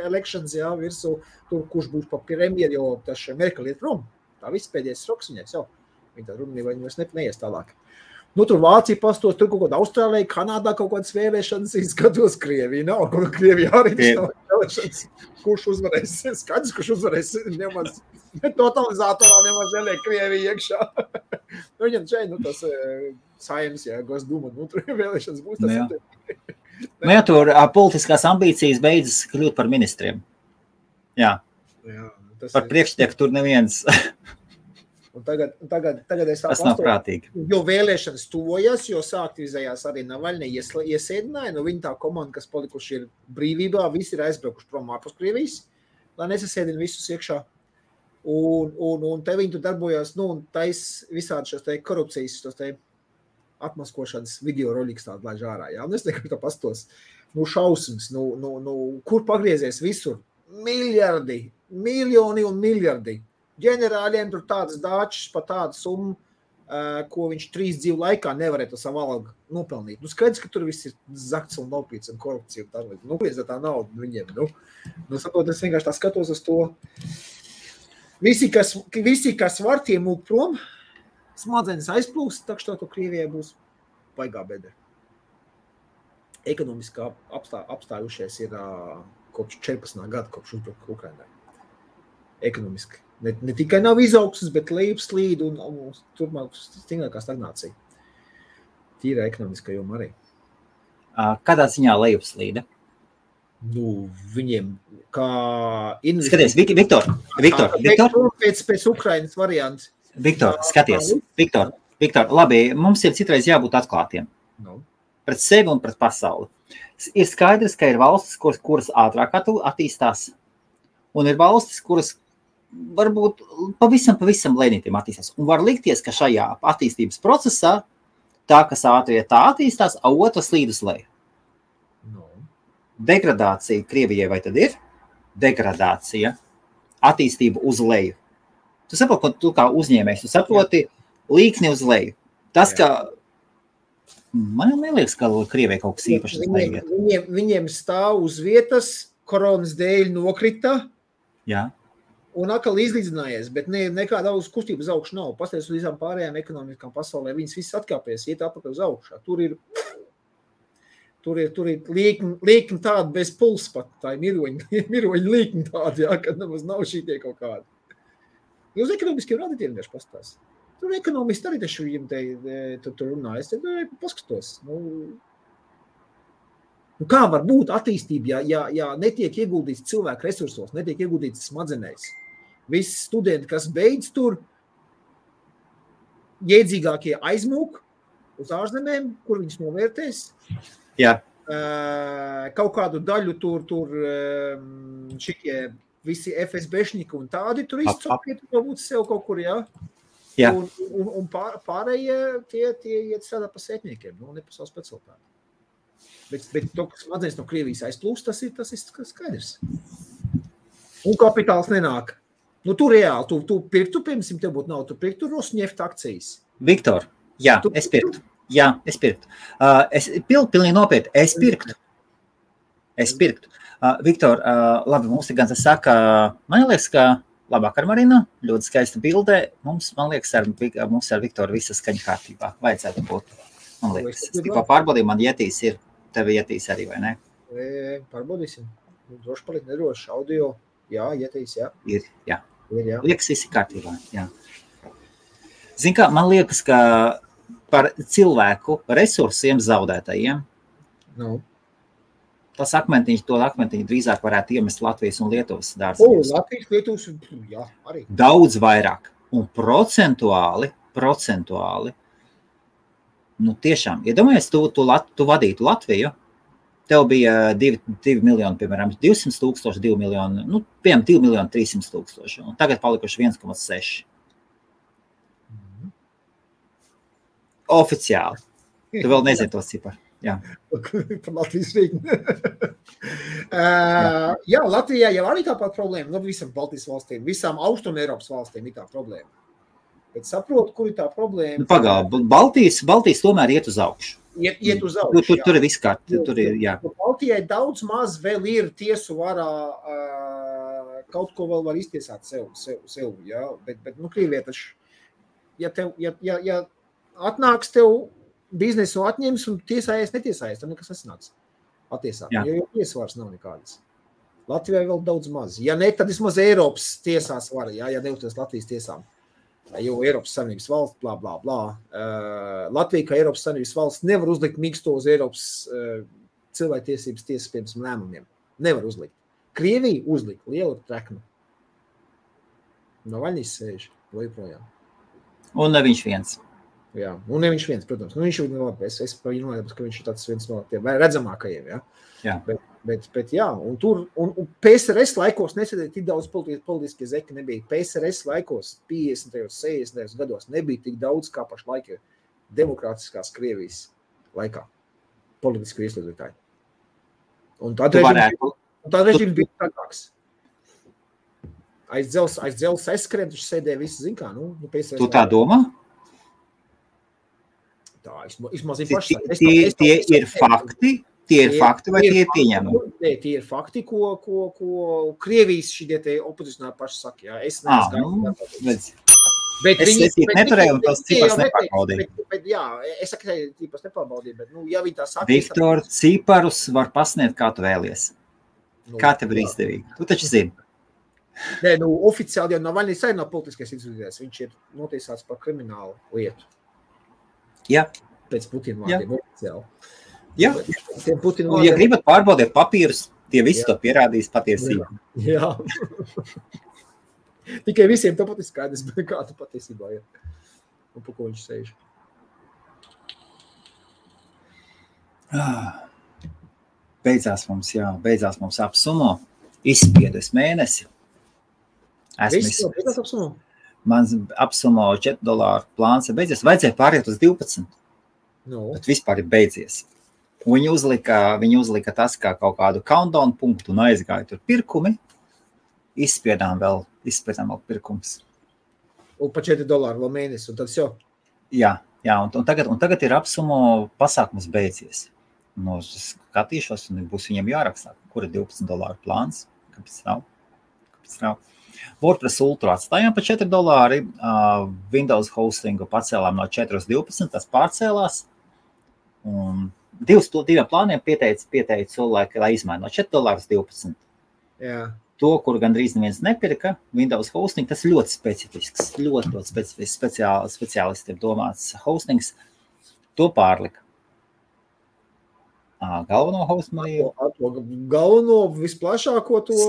elections, jā, virsu, tur, kurš būs pa premjeru, jo tas Merkel iet prom. Tā viss pēdējais roks viņais jau. Viņa tā runīja, vai viņas neies tālāk. Tur Vācija pastos, tur kaut kāda Austrālija, Kanādā kaut kādas vēlēšanas, skatos Krievija nav, Krievija arī nav vēlēšanas. Kurš uzvarēs? Skaidrs, kurš uzvarēs, nemaz totalizatorā nemaz neliek Krievija iekšā. Viņam šeit, tas Saeimas, jā, Gosduma, tur vēlēšanas būs.
Jā, tur politiskās ambīcijas beidzas kļūt par ministriem. Jā. Par priekštieku tur neviens...
Un tagad es
tas nav prātīgi.
Jo vēlēšanas tuvojas, jo sāktivizējās arī Navaļņa iesēdināja, viņi tā komanda, kas palikuši ir brīvībā, visi ir aizbraukuši prom ārpus Krievijas, lai nesasēdina visus iekšā. Un te viņi tur darbojās, un tais visādi šos te korupcijas, tos te atmaskošanas video roļiks tādu laiž ārā, jā. Un es nekā tā pastos, šausmas, kur pagriezies visur? Miljardi, miljoni un miljardi. Ģenerāļiem tur tādas dāčas pa tādu summu, ko viņš 3 dzīvu laikā nevarētu savu algu nopelnīt. Skaidrs, ka tur viss ir zakts un nopīts un korupcija un tā. Kliedz tā nauda viņiem. Saprot, es vienkārši tā skatos uz to. Visi, kas var, tie mūk prom, smadzenes aizplūst, tak što to Krievijai būs baigā bedre. Ekonomiski apstājušies ir kopš 14. gada, kopš uzbruka Ukrainai. Ekonomiski. Ne tikai nav izaugsmes, bet lejupslīd un turpmāk stingrākā stagnācija. Tīra ekonomiskā joma arī.
Kādā ziņā lejupslīde?
Viņiem kā
Skaties, Viktor.
Pēc Ukrainas variants.
Viktor, skaties. Viktor, labi, mums ir citreiz jābūt atklātiem. Pret sevi un pret pasauli. Ir skaidrs, ka ir valstis, kuras ātrāk attīstās, un ir valstis, kuras varbūt pavisam lēnītiem attīstās. Un var likties, ka šajā attīstības procesā tā, kas ātrie tā attīstās, a otrs slīd uz leju. Degradācija Krievijai vai tad ir? Degradācija, attīstība uz leju. Tu saproti, ka tu kā uzņēmējs, tu saproti līkni uz leju. Tas, ka man neliekas, ka Krievijai kaut kas īpašs uz leju iet.
Viņiem stāv uz vietas, koronas dēļ nokrita.
Jā.
Un atkal izlīdzinājies, bet nekāda kustība uz augšu nav. Pasties uz visām pārējām ekonomiskām pasaulē, viņas visas atkāpies, iet apakaļ uz augšā. Tur ir līkni tādi bez puls pat, tā ir miroņa līkni tādi, jā, kad nemaz nav šītie kaut kādi. Uz ekonomiskiem radītiem vienkārši pastās. Tur ekonomisti arī taču viņiem tur runā. Es te paskatos. Kā var būt attīstība, ja netiek ieguldīts cilvēku resursos, netiek ieguldīts smadzenēs? Visi studenti, kas beidz tur, iedzīgākie aizmūk uz ārzemēm, kur viņus novērtēs.
Jā.
Kaut kādu daļu tur šitie visi FSBšņiki un tādi tur izcopie, tur būt sev kaut kur, jā.
Jā.
Un pārējie tie iet strādā pa sētniekiem, ne pa savu specialitāti. Bet to, kas smadzenes no Krievijas aizplūst, tas ir skaidrs. Un kapitāls nenāk. Tu reāli, tu pirktu, piemēram, tev būtu nav, tu pirktu Rosneft akcijas.
Viktor, jā, es pirktu. Jā, es pirktu. Es pilnīgi nopietni, es pirktu. Viktor, labi, mums ir gan tas saka, man liekas, ka labvakar, Marina, ļoti skaista bildē. Man liekas, mums ar Viktoru visa skaņa kārtībā. Vajadzētu būt. Man liekas, es tikko pārbaudīju, man jetīs ir, tev jetīs arī, vai ne?
Pārbaudīsim. Droši palikt nedroši. Audio, jā, jetīs, jā.
Ir, jā.
Liekas,
visi kārtībā, jā. Zin kā, man liekas, ka par cilvēku resursiem zaudētajiem. Tas akmentiņu drīzāk varētu iemest Latvijas un Lietuvas dārziņos.
Latvijas, Lietuvas, jā, arī.
Daudz vairāk. Un procentuāli, tiešām, iedomājies, tu vadītu Latviju, tev bija 2 miljoni, piemēram, 200 000, 2 miljoni, piemēram, 2 miljoni 300 000, un tagad palikuši 1,6. Oficiāli. Tu vēl nezini tos ciparu. Jā.
Par Latvijas rīķi. Jā, Latvijā jau arī tāpat problēma. Visam Baltijas valstīm, visām Austrum Eiropas valstīm ir tā problēma. Bet saprotu, kur ir tā problēma.
Baltijas tomēr iet uz augšu.
Iet uz augšu,
Tur ir viss kārt.
Baltijai daudz maz vēl ir tiesu varā, kaut ko vēl var iztiesāt sev, jā. Bet Krievijai taču, ja atnāks tev biznesu atņems un tiesājies, netiesājies, tad nekas nesanāks attiesāt, jo tiesvars nav nekādas. Latvijai vēl daudz maz. Ja ne, tad vismaz Eiropas tiesās var, ja neuzties Latvijas tiesām. Jo Eiropas Savienības valsts, blā, blā, blā. Latvija, kā Eiropas Savienības valsts, nevar uzlikt mīksto uz Eiropas cilvēktiesības tiesas piemēram lēmumiem. Nevar uzlikt. Krievija uzlika lielu treknu. Navaļņīs sēž, vai joprojām.
Un ne viņš viens.
Jā, un ne viņš viens, protams. Viņš ir labi, es par viņu nolēpus, ka viņš ir tāds viens no tiem redzamākajiem, jā.
Jā.
Bet jā, un PSRS laikos nesēdēja tik daudz politiskie zeki nebija. PSRS laikos 50. 60. gados nebija tik daudz kā pašlaik demokrātiskās Krievijas laikā politisku ieslodzītāju. Un tad režīms bija tākāks. Aiz dzels aizskrien, taču sēdēja visi, zin kā, PSRS.
Tu tā domā?
Tā, izmaz ir paši.
Tie ir fakti? Tie ir fakti vai tie ir pieņemumi?
Tie ir fakti, ko Krievijas šitie te opozicionāri paši saka. Jā. Es neesmu
Es neturēju un tos cipars nepārbaudīju.
Bet jā, es saku, cipars nepārbaudīju, bet ja viņi tā saka...
Viktor, ciparus var pasniegt, kā tu vēlies. Kā tev ir izdevīgi? Tu taču zini.
Nē, oficiāli jau Navaļņīs arī nav politiskais izvirzies. Viņš ir notiesāts par kriminālu lietu.
Jā.
pēc Putina vārdiem oficiāli.
Jā. Un, ja gribat pārbaudīt papīrus, tie visi to pierādīs patiesībā.
Jā. Tikai visiem tāpat ir skaidrs, bet kā tu patiesībā ir. Un pa ko viņš sēž.
Beidzās mums apsumo. Izspiedus mēnesi.
Beidzās apsumo?
Mans apsumo $4 plāns ir beidzies. Vajadzēja pāriet uz 12.
No. Bet
vispār ir beidzies. Viņi uzlika tas kā kaut kādu countdown punktu un aizgāja tur pirkumi. Izspiedām vēl pirkums.
Un pa $4 vēl mēnesi, un tad jau?
Jā, un tagad ir apsumo pasākums beidzies. Nu, skatīšos, un būs viņam jārakstā, kur ir $12 plāns. Kāpēc nav? WordPress Ultra atstājām pa $4. Windows hostingu pacēlām no 4 uz 12, tas pārcēlās. Un diviem plāniem pieteicu, lai izmaina no $4 uz 12.
Jā.
To, kur gandrīz neviens nepirka, Windows hosting, tas ļoti specifisks, ļoti specifisks speciālistiem domāts hostings, to pārlika. Galveno hostingu.
Galveno, visplašāko to?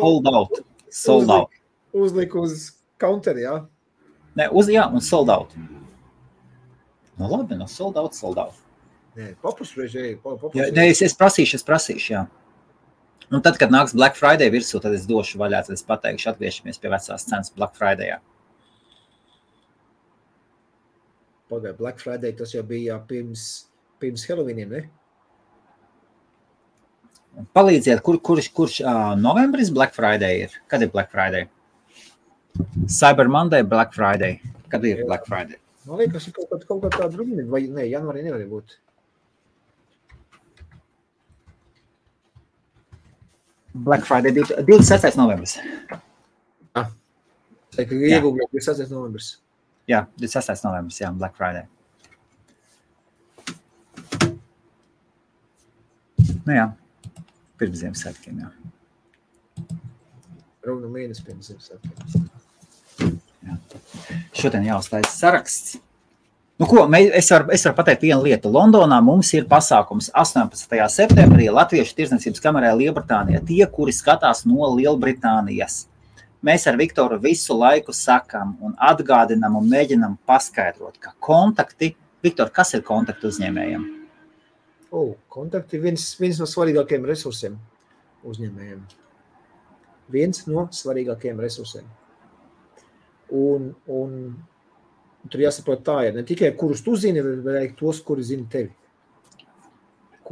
Sold out.
Uzlika uz counteri, jā?
Nē, un sold out. Nu labi, sold out.
Nē, papusreiz.
Es prasīšu, jā. Un tad, kad nāks Black Friday virsū, tad es došu vaļā, tad es pateikšu, atgriežamies pie vecās cenas Black Fridayā.
Pagaid, Black Friday, tas jau bija pirms Halloweeniem, ne?
Palīdziet, kurš novembris Black Friday ir? Kad ir Black Friday? Cyber Monday, Black Friday. Kad ir Black Friday?
Man liekas, ir kaut kā tāda runa, vai ne, janvārī nevar būt.
Black Friday 26. novembris.
Iegūgļot 26. novembris.
Jā, 26. novembris, jā, Black Friday. Nu jā, pirms Ziemassvētkiem, jā.
Runa mēnesi pirms Ziemassvētkiem.
Jā. Šodien jāuztaisa saraksts. Nu ko, es varu pateikt vienu lietu. Londonā mums ir pasākums 18. septembrī Latviešu tirdzniecības kamerā Lielbritānijā. Tie, kuri skatās no Lielbritānijas. Mēs ar Viktoru visu laiku sakam un atgādinam un mēģinam paskaidrot, ka kontakti... Viktor, kas ir kontakti uzņēmējiem?
Kontakti ir viens no svarīgākajiem resursiem uzņēmējiem. Viens no svarīgākajiem resursiem. Un tur jāsaprot tā ir. Ne tikai kurus tu zini, bet tos, kuri zini tevi.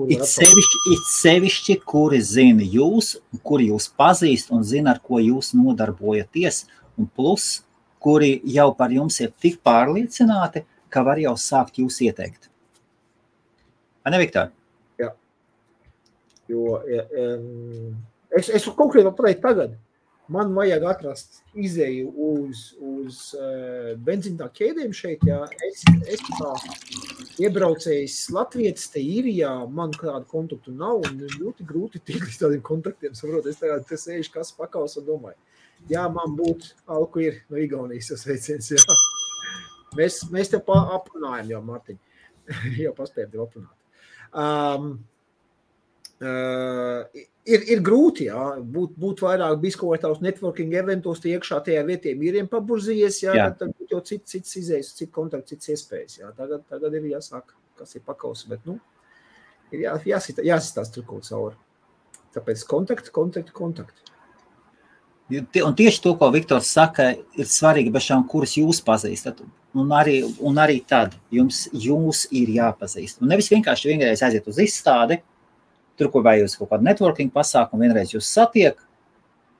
It sevišķi, kuri zina jūs, kuri jūs pazīst un zina, ar ko jūs nodarbojaties. Un plus, kuri jau par jums ir tik pārliecināti, ka var jau sākt jūs ieteikt. Vai ne, Viktor?
Jā. Jo es konkrēti vēl pateikt tagad. Man vajag atrast izēju uz benzīna ķēdēm šeit, jā. Es tā iebraucējis Latvietis te Īrijā, man kādu kontaktu nav, un ļoti grūti tikt līdz tādiem kontaktiem, saprot, es tagad sēžu kas pakaus un domāju. Jā, man būtu alku ir no Igaunijas tas veiciens, jā. Mēs tev aprunājam jau, Martiņ. Jau paspējam tev aprunāt. Ir grūti, jā, būt vairāk biskotāvs networking eventos, tie iekšā tajā vietiem īriem paburzījies, jā, tad būtu jau cits izējas, cits kontakts, cits iespējas, jā, tagad ir jāsāk, kas ir pakaus, bet, ir jāsistās tur kaut cauri. Tāpēc kontakti.
Un tieši to, ko Viktors saka, ir svarīgi bešām, kuras jūs pazīstat, un arī tad jūs ir jāpazīst. Un nevis vienreiz aiziet uz izstādi, tur, ko vai jūs kaut kādu networking pasākumu, vienreiz jūs satiek,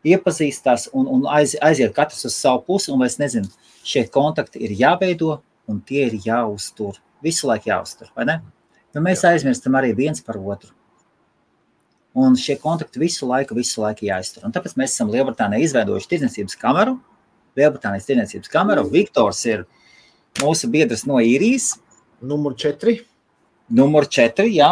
iepazīstās un aiziet katrs uz savu pusi, un es nezinu, šie kontakti ir jāveido, un tie ir jāuztur. Visu laiku jāuztur, vai ne? Jo mēs aizmirstam arī viens par otru. Un šie kontakti visu laiku jāiztur. Un tāpēc mēs esam Lielbritānijā izveidojuši tirdzniecības kameru. Lielbritānijas tirdzniecības kameru. Viktors ir mūsu biedrs no Īrijas.
Numur 4,
jā.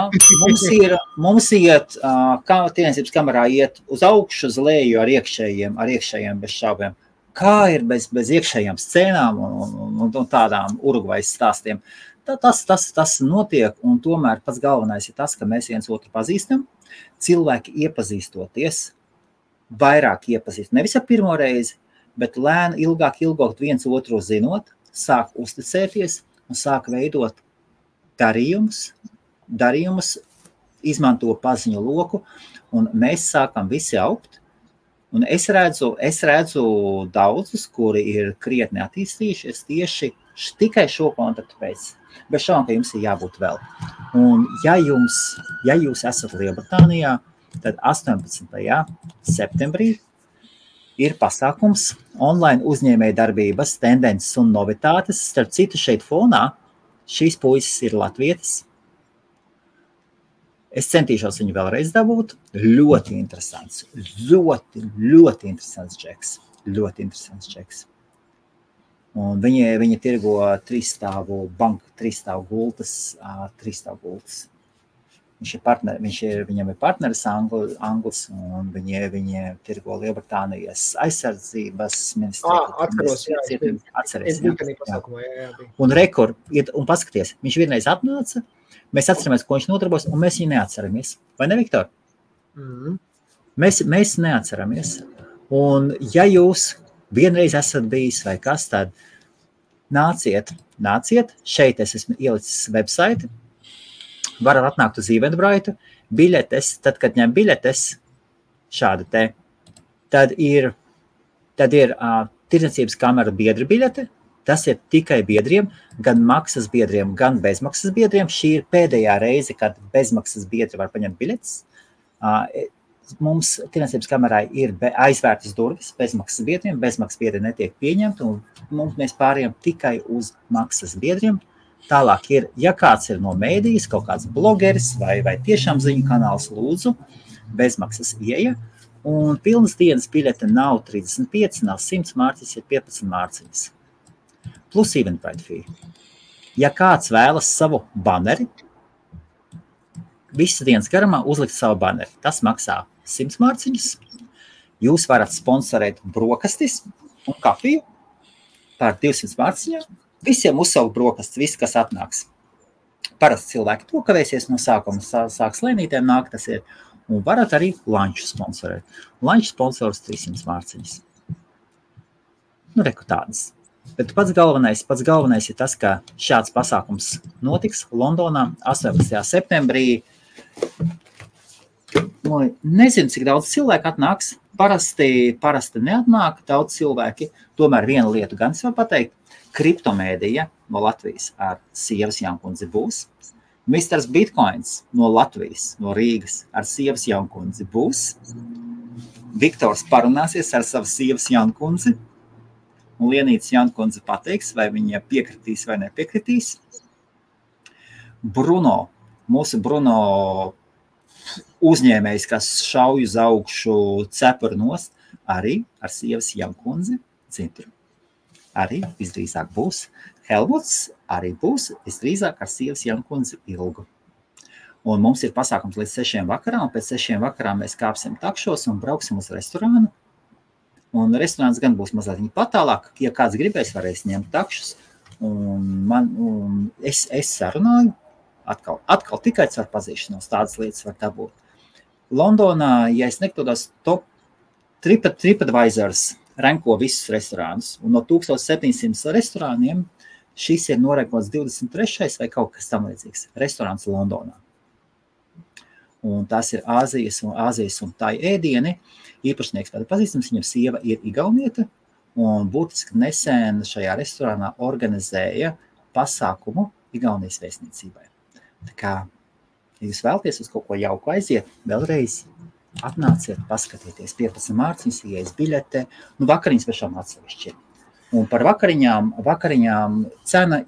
Mums iet, kā tirdzniecības kamerā iet uz augšu, uz leju ar iekšējiem bez šaubiem. Kā ir bez iekšējām scēnām un tādām Urugvajas stāstiem. tas notiek, un tomēr pats galvenais ir tas, ka mēs viens otru pazīstam, cilvēki iepazīstoties, vairāk iepazīst, nevis ar pirmo reizi, bet lēni, ilgāk viens otru zinot, sāk uzticēties un sāk veidot darījumus, izmanto paziņu loku, un mēs sākam visi augt. Un es redzu daudzus, kuri ir krietni attīstījušies tieši tikai šo kontaktu pēc. Bet šādi, ka jums ir jābūt vēl. Un ja jūs esat Lielbritānijā, tad 18. septembrī ir pasākums online uzņēmēja darbības, tendences un novitātes. Starp citu šeit fonā šīs puisis ir latvietis. Es centīšos viņu vēlreiz dabūt. Ļoti interesants. Ļoti interesants čeks. Ļoti interesants čeks. Un viņi tirgo banku, 3-stāvu gultas. Viņam ir partneris Anglis, un viņi tirgo Lielbritānijas aizsardzības ministriju. Atceries. Un un paskaties, viņš vienreiz atnāca, mēs atceramies, ko viņš nodarbojas, un mēs viņu neatceramies. Vai ne, Viktor? Mēs neatceramies. Un ja jūs vienreiz esat bijis vai kas, tad nāciet. Šeit es esmu ielicis website. Varat atnākt uz Eventbrite. Biļetes, tad, kad ņem biļetes, šāda te, tad ir tirdzniecības kamera biedra biļete. Tas ir tikai biedriem, gan maksas biedriem, gan bezmaksas biedriem. Šī ir pēdējā reize, kad bezmaksas biedri var paņemt biļetes. Mums tirdzniecības kamerai ir aizvērtas durvis bezmaksas biedriem. Bezmaksas biedri netiek pieņemti, un mēs pārējām tikai uz maksas biedriem. Tālāk ir, ja kāds ir no mēdīs, kaut kāds blogeris vai tiešām ziņu kanāls, lūdzu, bezmaksas ieeja. Un pilnas dienas biļete nav 35, nav 100 mārciņas, ir 15 mārciņas. Plus Eventbrite fee. Ja kāds vēlas savu baneri, visas dienas garumā uzlikt savu baneri, tas maksā 100 mārciņas. Jūs varat sponsorēt brokastis un kafiju par 200 mārciņām. Visiem uzsaukt brokastis, viss, kas atnāks. Parasti cilvēki to kavēsies no sākuma, sāks lēnītēm nāk, tas ir. Un varat arī lanču sponsorēt. Lanču sponsors 300 mārciņas. Reku tādas. Bet pats galvenais ir tas, ka šāds pasākums notiks Londonā 18. septembrī. Nezinu, cik daudz cilvēku atnāks. Parasti neatnāk daudz cilvēki. Tomēr vienu lietu gan es varu pateikt. Kriptomēdija no Latvijas ar Sievas Jankundzi būs. Misters Bitcoins no Latvijas, no Rīgas ar Sievas Jankundzi būs. Viktors parunāsies ar savu Sievas Jankundzi. Un Lienītis Jankundze pateiks, vai viņa piekritīs vai nepiekritīs. Mūsu Bruno uzņēmējs, kas šauj uz augšu cepuru nost, arī ar Sievas Jankundzi cintru. Arī visdrīzāk būs. Helmuts arī būs visdrīzāk ar Sievas Jankundzi ilgu. Un mums ir pasākums līdz 6 vakarā, un pēc 6 vakarā mēs kāpsim takšos un brauksim uz restorānu. Un restorāns gan būs mazliet patālāk, ja kāds gribēs, varēs ņemt takšus. Un es sarunāju, atkal tikai ar pazīšanos, tādas lietas var dabūt. Londonā, ja es nekļūdos, TripAdvisors ranko visus restorānus. Un no 1700 restorāniem šis ir norankots 23. vai kaut kas tam līdzīgs. Restorāns Londonā. Un tās ir Āzijas un tai ēdieni. Īpašnieks tāda pazīstams, viņam sieva ir igaunieta, un būtiski nesen šajā restorānā organizēja pasākumu Igaunijas vēstniecībai. Tā kā, ja jūs vēlaties uz kaut ko jauku aiziet, vēlreiz atnāciet, paskatieties 15 mārciņas, ieejas biļete, vakariņas pašām atsevišķi. Un par vakariņām cena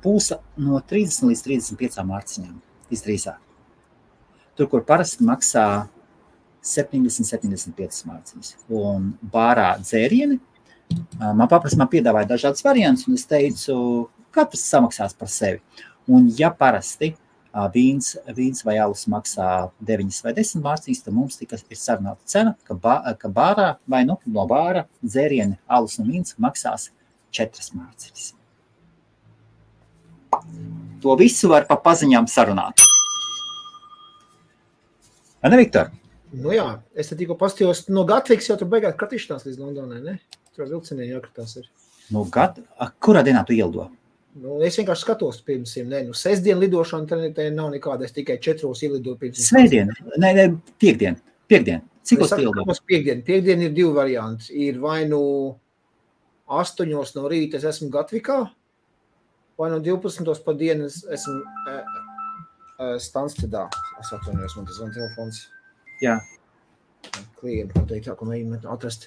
būs no 30 līdz 35 mārciņām, visdrīzāk. Tur, kur parasti maksā 70-75 mārciņas. Un bārā dzērieni, man piedāvāja dažādas variantus, un es teicu, katrs samaksās par sevi. Un ja parasti vīns vai alus maksā 9 vai 10 mārciņas, tad mums tikai ir sarunāta cena, ka bārā vai no bāra dzērieni, alus un vīns maksās 4 mārciņas. To visu var pa paziņām sarunāt. Vai ne, Viktor?
Nu jā, es te tikko pastījos, no Gatvikas jau tur beigās kratīšanās līdz Londonai, ne? Tur vilcieniem jākratās ir.
Nu, kurā dienā tu ielido?
Nu, es vienkārši skatos pirms sestdien lidošana, te nav nekāda, es tikai 4 ielidoju pirms.
Svētdien, ne, piekdien. Cik uz ielido?
Piekdien ir 2 varianti. Ir vai nu 8 no rīta es esmu Gatvikā, vai no 12 pa dienu es esmu Stanstedā. Es atvainojos, man tas zvan telefons.
Jā.
Klienti pateikt, ko mēģināt atrast.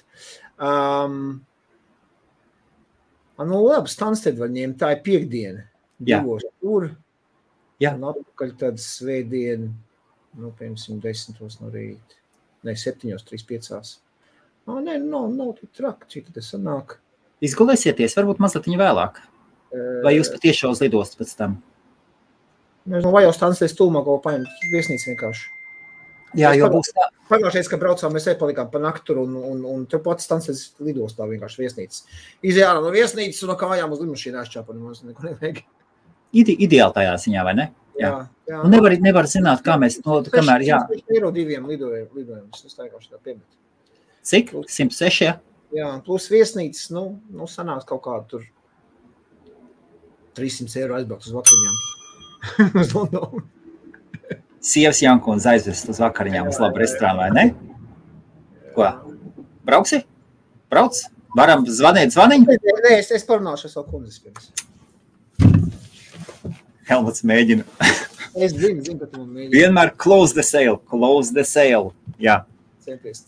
Nu, labi, Stansted var ņemt, tā ir piekdiena. 2 tur.
Jā.
Un atpakaļ tad svētdien, nu, piemēram, 10 no rīta. Ne, 7:35. Nav tik traki, cik tas sanāk.
Izgulēsieties, varbūt mazliet vēlāk. Vai jūs patiešām uz lidostu pēc tam?
Vai jau Stansted stūmā kaut paņemt viesnīcu vienkārši.
Jā, jo būs tā.
Pagājušais, kad braucām, mēs palikām pa naktu un te pats Stansted lidostā vienkārši viesnīcas. Izjāra no viesnīcas un no kājām uz lidmašīnu aizčāpa, mums neko nevajag.
Ideāli tajā ziņā, vai ne?
Jā.
Un nevar zināt, kā mēs, kamēr, jā.
106 eiro 2 lidojumus, es taikāšu tā piemet.
Cik? 106, jā?
Jā, plus viesnīcas, nu sanāks kaut kādu tur 300 eiro aizbraukt uz vakariņām. Uz Londonu.
Sievas Jankons aizvest uz vakariņām uz labu restorānu, vai ne? Ko? Brauksi? Brauc? Varam zvanīt zvaniņu?
Nē, es parunāšu savu kundzes pirms.
Helmuts mēģina.
Es zinu, ka tu man mēģina.
Vienmēr close the sale. Jā.
Centies.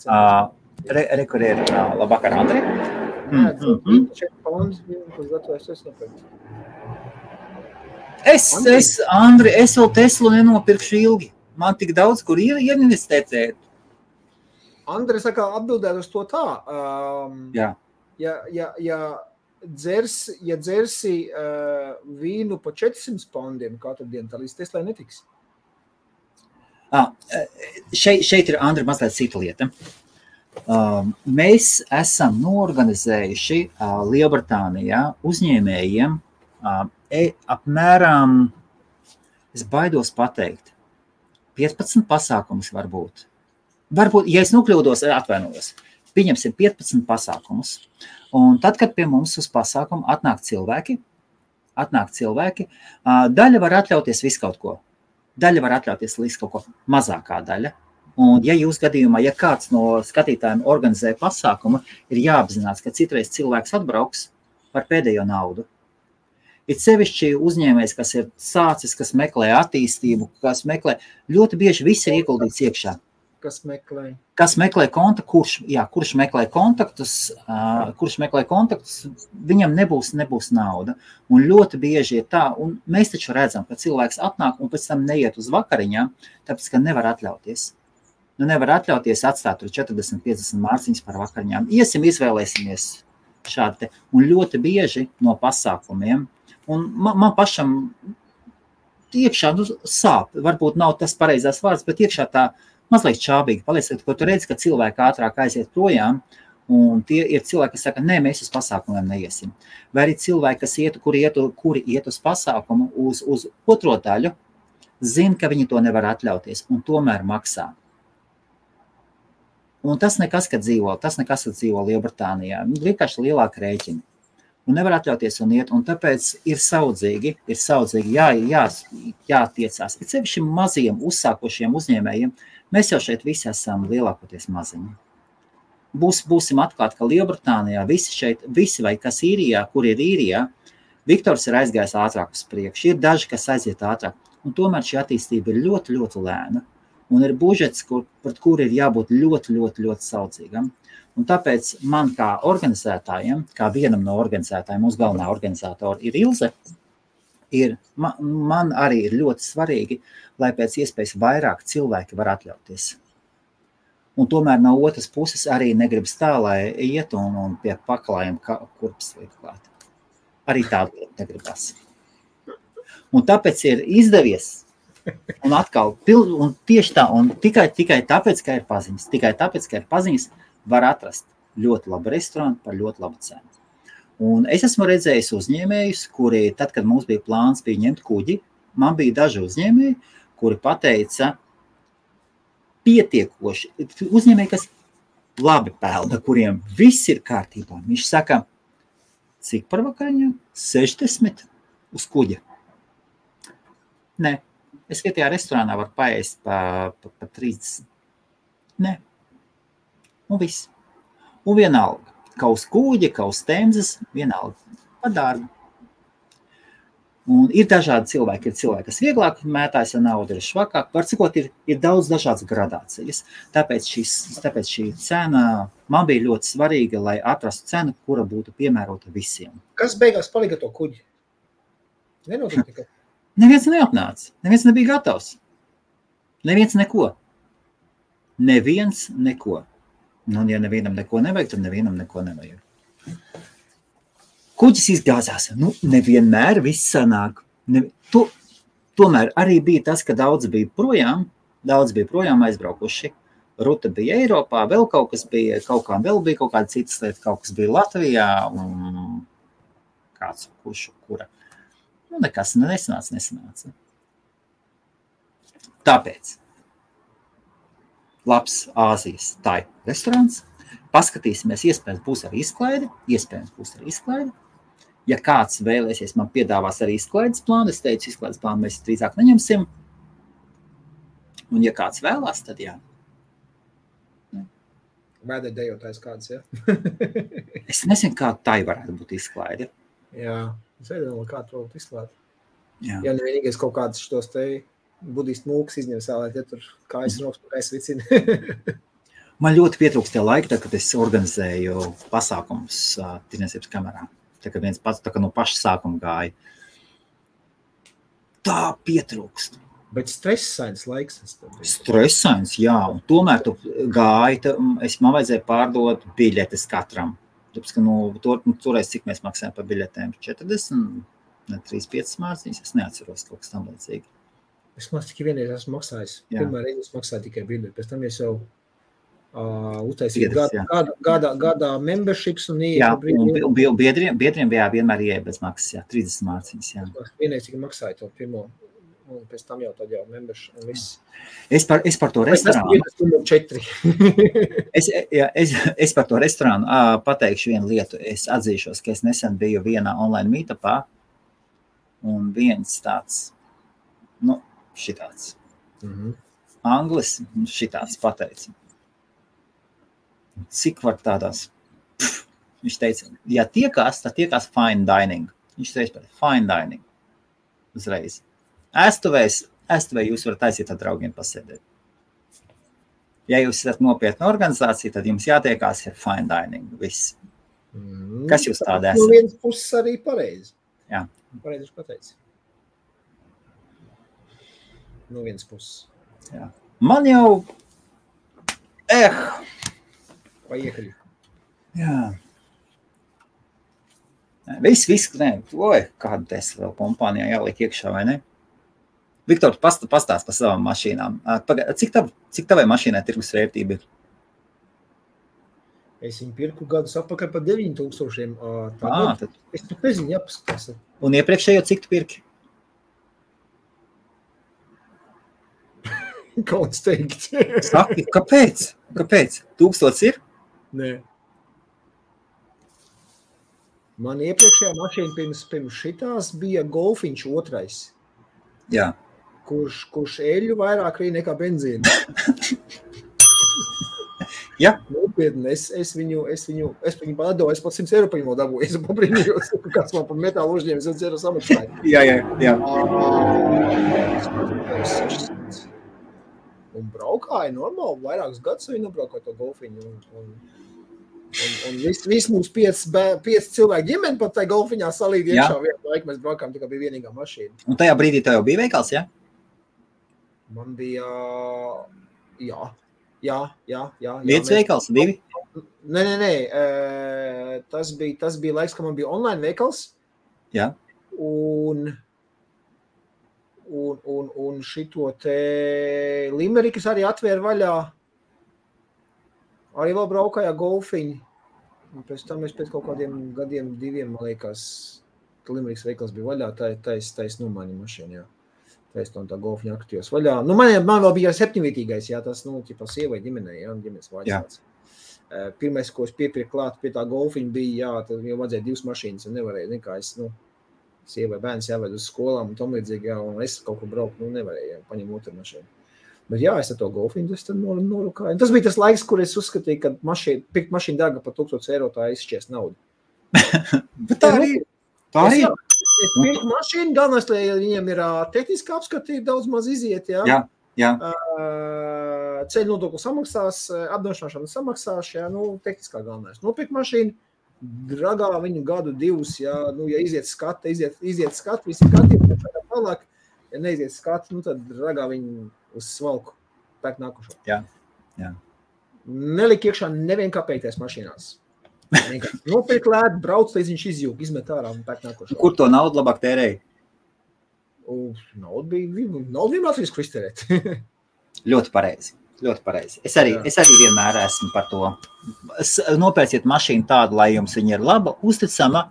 Kur ir labvakar, Andri?
Jā, 4 pounds, kas gatavojas es nopirkt.
Andri, es vēl Teslu nenopirkšu ilgi. Man tik daudz, kur ieinvestēt.
Andri, saka, atbildēt uz to tā.
Jā.
Ja dzersi vīnu pa 400 poundiem katru dienu, tā līdz Teslai netiks.
Šeit ir, Andri, mazliet cita lieta. Mēs esam noorganizējuši Lielbritānijā uzņēmējiem apmēram, es baidos pateikt, 15 pasākumus varbūt. Varbūt, ja es nokļūdos, atvainojos, pieņemsim 15 pasākumus. Un tad, kad pie mums uz pasākumu atnāk cilvēki, daļa var atļauties visu kaut ko. Daļa var atļauties visu kaut ko, mazākā daļa. Un ja jūs gadījumā, ja kāds no skatītājiem organizē pasākumu, ir jāapzinās, ka citreiz cilvēks atbrauks par pēdējo naudu. Ir sevišķi uzņēmējs, kas ir sācis, kas meklē attīstību, kas meklē, ļoti bieži viss ir ieguldīts iekšā.
Kas
meklē kurš meklē kontaktus, viņam nebūs nauda. Un ļoti bieži ir tā, un mēs taču redzam, ka cilvēks atnāk un pēc tam neiet uz vakariņām, tāpēc, ka nevar atļauties. Nevar atļauties atstāt tur 40-50 mārciņas par vakariņām. Iesim, izvēlēsimies šādi te. Un ļoti bieži no pasākumiem, un man pašam iekšā sāp, varbūt nav tas pareizās vārds, bet iekšā tā mazliet čābīgi paliec, ko tu redzi, ka cilvēki ātrāk aiziet projām, un tie ir cilvēki, kas saka, nē, mēs uz pasākumiem neiesim. Vai arī cilvēki, kuri iet uz pasākumu uz otro daļu, zina, ka viņi to nevar atļauties, un tomēr maksā. Un tas nekas, kad dzīvo Lielbritānijā. Vienkārši lielāka rēķina. Un nevar atļauties un iet, un tāpēc ir saudzīgi jātiecās. Ir sevišķi maziem uzsākošiem uzņēmējiem. Mēs jau šeit visi esam lielākoties maziņi. Būsim atklāti, ka Lielbritānijā visi vai kas īrijā, kur ir īrijā, Viktors ir aizgājis ātrāk uz priekšu. Ir daži, kas aiziet ātrāk. Un tomēr šī attīstība ir ļoti, ļoti lēna. Un ir budžets, pret kuru ir jābūt ļoti, ļoti, ļoti saudzīgam. Un tāpēc man kā organizētājiem, kā vienam no organizētājiem, mūsu galvenā organizatora ir Ilze, man arī ir ļoti svarīgi, lai pēc iespējas vairāk cilvēki var atļauties. Un tomēr no otras puses arī negribas tā, lai iet un pie paklājiem kurpes liek klāt. Arī tādu negribas. Un tāpēc ir izdevies. Un atkal, un tieši tā, un tikai tāpēc, ka ir paziņas, var atrast ļoti labu restorānu par ļoti labu cenu. Un es esmu redzējis uzņēmējus, kuri, tad, kad mums bija plāns bija ņemt kuģi, man bija daži uzņēmēji, kuri pateica pietiekoši, uzņēmēji, kas labi pelna, kuriem viss ir kārtībā. Viņš saka, cik par vakariņām? 60 uz kuģa. Nē, es vietējā restorānā varu paēst pa 30. Nē. Un viss. Un vienalga. Kā uz kuģa, kā uz temzes, vienalga. Par dārgu. Un ir dažādi cilvēki. Ir cilvēki, kas vieglāk mētājas ar naudu, ir švakāk. Var cikot, ir daudz dažādas gradācijas. Tāpēc šī cena man bija ļoti svarīga, lai atrastu cenu, kura būtu piemērota visiem.
Kas beigās palika to kuģi? Nenotika tikai.
Neviens neatnāca. Neviens nebija gatavs. Neviens neko. Neviens neko. Nu, ja nevienam neko nevajag, tad nevienam neko nevajag. Kuģis izgāzās. Nu, nevienmēr viss sanāk. Tomēr arī bija tas, ka daudz bija projām aizbraukuši. Ruta bija Eiropā, vēl kaut kas bija, kaut kāda citas lieta, kaut kas bija Latvijā un kāds kura. Nu, nekas nesanāca. Tāpēc labs Āzijas tai restorāns. Paskatīsimies, iespējams būs arī izklaide. Ja kāds vēlēsies, man piedāvās arī izklaides plānu. Es teicu, izklaides plānu mēs drīzāk neņemsim. Un ja kāds vēlās, tad jā.
Vēdē dejotājs kāds, ja?
Es nezinu, kā tai varētu būt izklaide.
Jā, es nezinu, kā to izklāt.
Jā.
Ja nevienīgais kaut kāds šitos te budistu mūks izņem sālēt, ja tur kājas rokas, kājas vicina.
Man ļoti pietrūkst tie laiki, kad es organizēju pasākumus tirdzniecības kamerā. Tā kā viens pats tā kā no paša sākuma gāja. Tā pietrūkst.
Bet stresains laiks.
Stresains, jā. Un tomēr tu gāji, man vajadzēja pārdot biļetes katram. Tāpēc, ka toreiz cik mēs maksājam par biļetēm? 40, 35 mārciņas, es neatceros kaut kas tam līdzīgi.
Es mācu, tikai vienreiz esmu maksājis. Pirmā reize es maksāju tikai biļeti. Pēc tam es jau uztaisīju gadā memberships un
biedriem vienmēr ieeja bez maksas, jā, 30 mārciņas, jā.
Vienreiz tikai maksāju to pirmo, un pēc tam jau tad jau membership un viss.
Es par to restorānu. Es par to restorānu pateikšu vienu lietu. Es atzīšos, ka es nesen biju vienā online meetupā, un viens tāds, šitāds. Anglis šitāds pateica. Cik var tādās? Viņš teica, ja tiekās, tad tiekās fine dining. Viņš teica, fine dining. Uzreiz. Ēstuvē jūs varat aiziet ar draugiem pasēdēt. Ja jūs esat nopietna organizācija, tad jums jātiekās ar fine dining. Viss. Kas jūs tāda esat?
No vienas puses arī pareizi.
Jā.
Pareizi pateici. No vienas puses.
Jā. Man jau...
Vai iekaļi? Jā.
Viss, kādu Tesla vēl kompānijā jāliek iekšā, vai ne? Viktor, pastāst par savām mašīnām. Cik tavai mašīnai tirgus vērtība ir?
Es viņu pirku gadus apakaļ par 9,000.
Tad...
Es pat nezinu, jāpaskatās.
Un iepriekšējo cik tu pirki?
Kauns teikt.
Saki, kāpēc? 1000 ir?
Nē. Man iepriekšējā mašīna pirms šitās bija Golfiņš 2.
Jā.
Kurš eļu vairāk rīja nekā benzīna.
Jā.
Nopietni, es viņu padoju, es pat 100 eiro par viņu dabūju. Es pabrīnījos, kāds man par metālu uzņēma 100 eiro samaksāja.
Jā.
Un braukāja normāli, vairākus gadus viņi nobraukāja to Golfiņu. Un viss mums 5 cilvēku ģimeni pat tai Golfiņā salīd iekšā vienu laiku. Mēs braukājām, tikai bija vienīgā mašīna.
Un tajā brīdī tev jau bija veikals, jā?
Man bija, jā.
Viens veikals, 2?
Nē. Tas bija laiks, ka man bija online veikals.
Jā.
Un šito te Limerikas arī atvēra vaļā. Arī vēl braukājā Golfiņi. Un pēc tam es pēc kaut kādiem gadiem, 2, man liekas, Limerikas veikals bija vaļā, tais nomaiņa mašīna, jā. Tais tā golfiņa aktīvos vaļā. Nu, man vēl bija 7-vietīgais, jā, tas, nu, ķipa sievai ģimenei, jā, ģimenes vāģis. Pirmais, ko es piepirku klāt pie tā golfiņa bija, jā, tad jau vajadzēja 2 mašīnas, un nevarēja, nekā es, nu, sievai bērns jāved uz skolām un tam līdzīgi, jā, un es kaut ko braukt, nu, nevarēju, jā, paņem otru mašīnu. Bet jā, es ar to golfiņu, es tad norukāju. Tas bija tas laiks, kur es uzskatīju, ka pirkt mašīnu dārga par 1000 eiro, tā izšķies naudu.
Bet tā arī.
Es pirku mašīnu, galvenais, lai viņiem ir tehniski apskatīt, daudz maz iziet, jā.
Jā.
Ceļu nodokli samaksās, apdrošināšana samaksās, jā, nu, tehniskā galvenais. Nopirkt mašīnu, dragā viņu gadu 2, jā, nu, ja iziet skati, visi skatījumi, tālāk, ja neiziet skati, nu, tad dragā viņu uz svalku pēc nākušo.
Jā.
Nelik iekšā nevien kāpēties mašīnās. Nopirkt lēt, brauc, līdz viņš izjūg, izmet ārā un pēc nākušo.
Kur to naudu labāk tērēja?
Naudu vienmēr risku iztērēt.
Ļoti pareizi. Es arī vienmēr esmu par to. Nopērciet mašīnu tādu, lai jums viņa ir laba, uzticama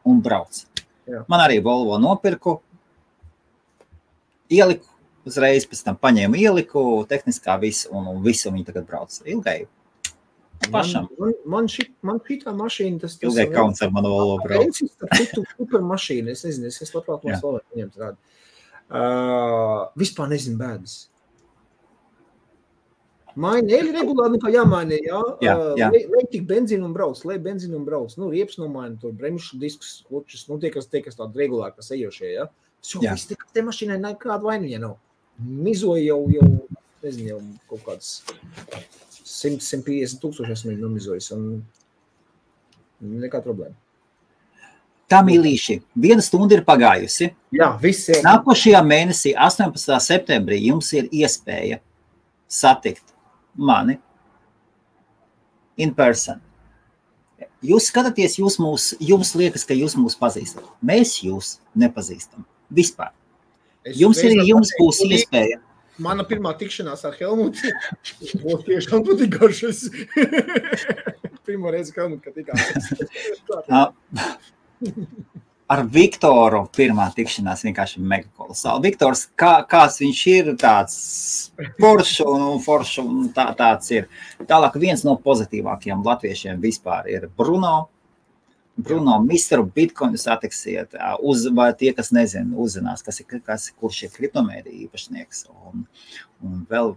un brauc.
Jā.
Man arī Volvo nopirku, ieliku, uzreiz pēc tam paņēmu ieliku, tehniskā visu, un visu viņi tagad brauc. Ilgai pašam.
Man šitā mašīna, tas
ilgai kauns ar manu Volvo brauc.
Super mašīna, es nezinu, es labprāt mums vēl ņemt rādu. Vispār nezinu bēdas. Maini, eļi regulāri nekā jāmaini, jā. Lai tik benzīnu un brauc, nu, rieps nomaina, tur bremšu diskus, klučus, nu, tie, kas tādi regulāri, kas ejošie, jā. Viss te mašīnai nekāda vainiņa nav. Mizoja jau, nezinu, jau kaut kāds 100-150 tūkstoši esmu viņu nomizojis, un nekā problēma.
Tā, mīlīši, 1 stunda ir pagājusi.
Jā, viss jau.
Nākošajā mēnesī, 18. septembrī, jums ir iespēja satikt mani in person. Jūs skatāties, jums liekas, ka jūs mūs pazīstat. Mēs jūs nepazīstam. Vispār. Jums būs iespēja.
Mana pirmā tikšanās ar Helmutu būs tiešām patīk garšas. Pirmā reize Helmutu, ka tikās. Ar Viktoru pirmā tikšanās vienkārši mega kolosāli. Viktors, kāds viņš ir, tāds foršs un tāds ir. Tālāk viens no pozitīvākajiem latviešiem vispār ir Bruno, Misteru Bitcoinu satiksiet, vai tie, kas nezina, uzzinās, kurš ir kriptomēdija īpašnieks. Un vēl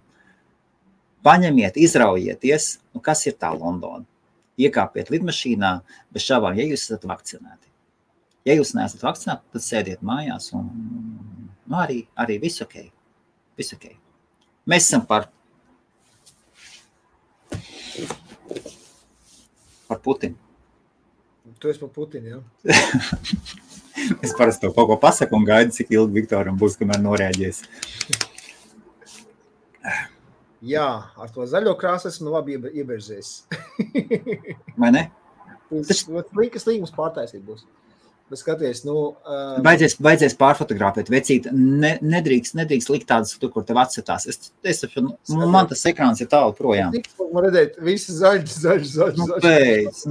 paņemiet, izraujieties, kas ir tā Londona. Iekāpiet lidmašīnā, bez šaubām, ja jūs esat vakcinēti. Ja jūs neesat vakcinēti, tad sēdiet mājās un arī viss ok. Mēs esam par Putinu. Tu esi par Putinu, jā?
Es parasti to kaut ko pasaku un gaidu, cik ilgi Viktoram būs, kamēr norēģies.
Jā, ar to zaļo krāsu esmu labi ieberžēs.
Vai ne?
Tas līgums pārtaisīt būs. Bet skaties, nu...
Baidzies pārfotografēt, vecīt, nedrīkst likt tādas, kur tev atsetās. Man tas ekrāns ir tālu projām.
Man redzēt, visi zaļš.
Nu, pēc,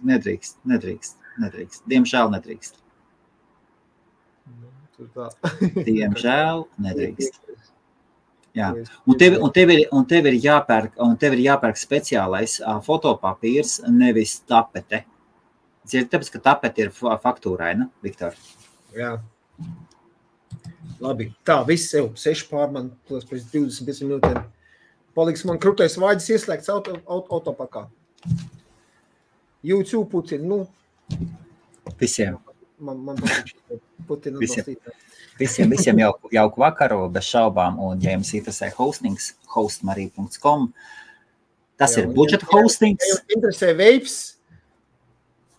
nedrīkst. Diemžēl nedrīkst. Diemžēl nedrīkst. Jā. Un tev ir jāpērk speciālais fotopapīrs, nevis tapete. Tāpēc, ka tapete ir faktūraina, Viktor.
Jā. Labi. Tā, viss jau 6 pār man, pēc 25 minūtēm. Paliks man krūtais vāģis ieslēgts autopakā. YouTube Putin, nu.
Visiem.
Man patīk Putin atbalstīt.
Visiem jauku vakaru, bez šaubām. Un, ja jums interesē hostings, hostmarī.com. Tas ir budžeta hostings.
Ja jums interesē vapes,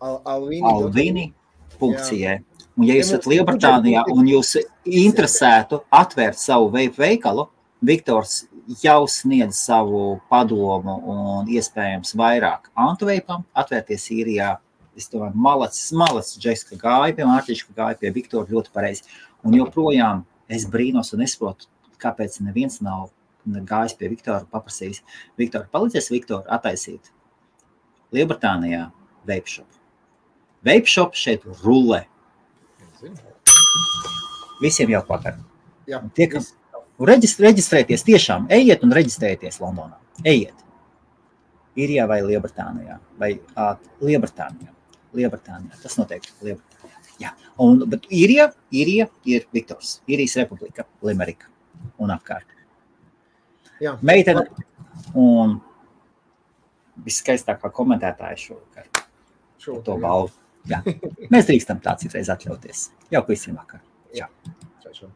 Alvini.ie. Un ja jūs esat Lielbritānijā un jūs interesētu atvērt savu vape veikalu, Viktors jau sniedz savu padomu un iespējams vairāk antivapam atvērties Īrijā. Es domāju, malacis Džeska gāja pie Mārtiņš, gāja pie Viktora ļoti pareizi. Un joprojām es brīnos un nesaprotu, kāpēc neviens nav gājis pie Viktora paprasījis. Viktor, palīdzies Viktoru attaisīt Lielbritānijā vape shop. Vape shop šeit rullē. Visiem jauku vakaru.
Jā.
Reģistrēties tiešām. Ejiet un reģistrēties Londonā. Ejiet. Īrijā vai Lielbritānijā. Vai Lielbritānijā. Tas noteikti Lielbritānijā. Jā. Bet Īrija ir Viktors. Īrijas republika, Limerika un apkārt.
Jā.
Meitene un viskaistākā komentētāja šovakar. To balvu. Jā. Mēs drīkstam tā citreiz atļauties. Jauku visiem vakar.
Jā. Čau.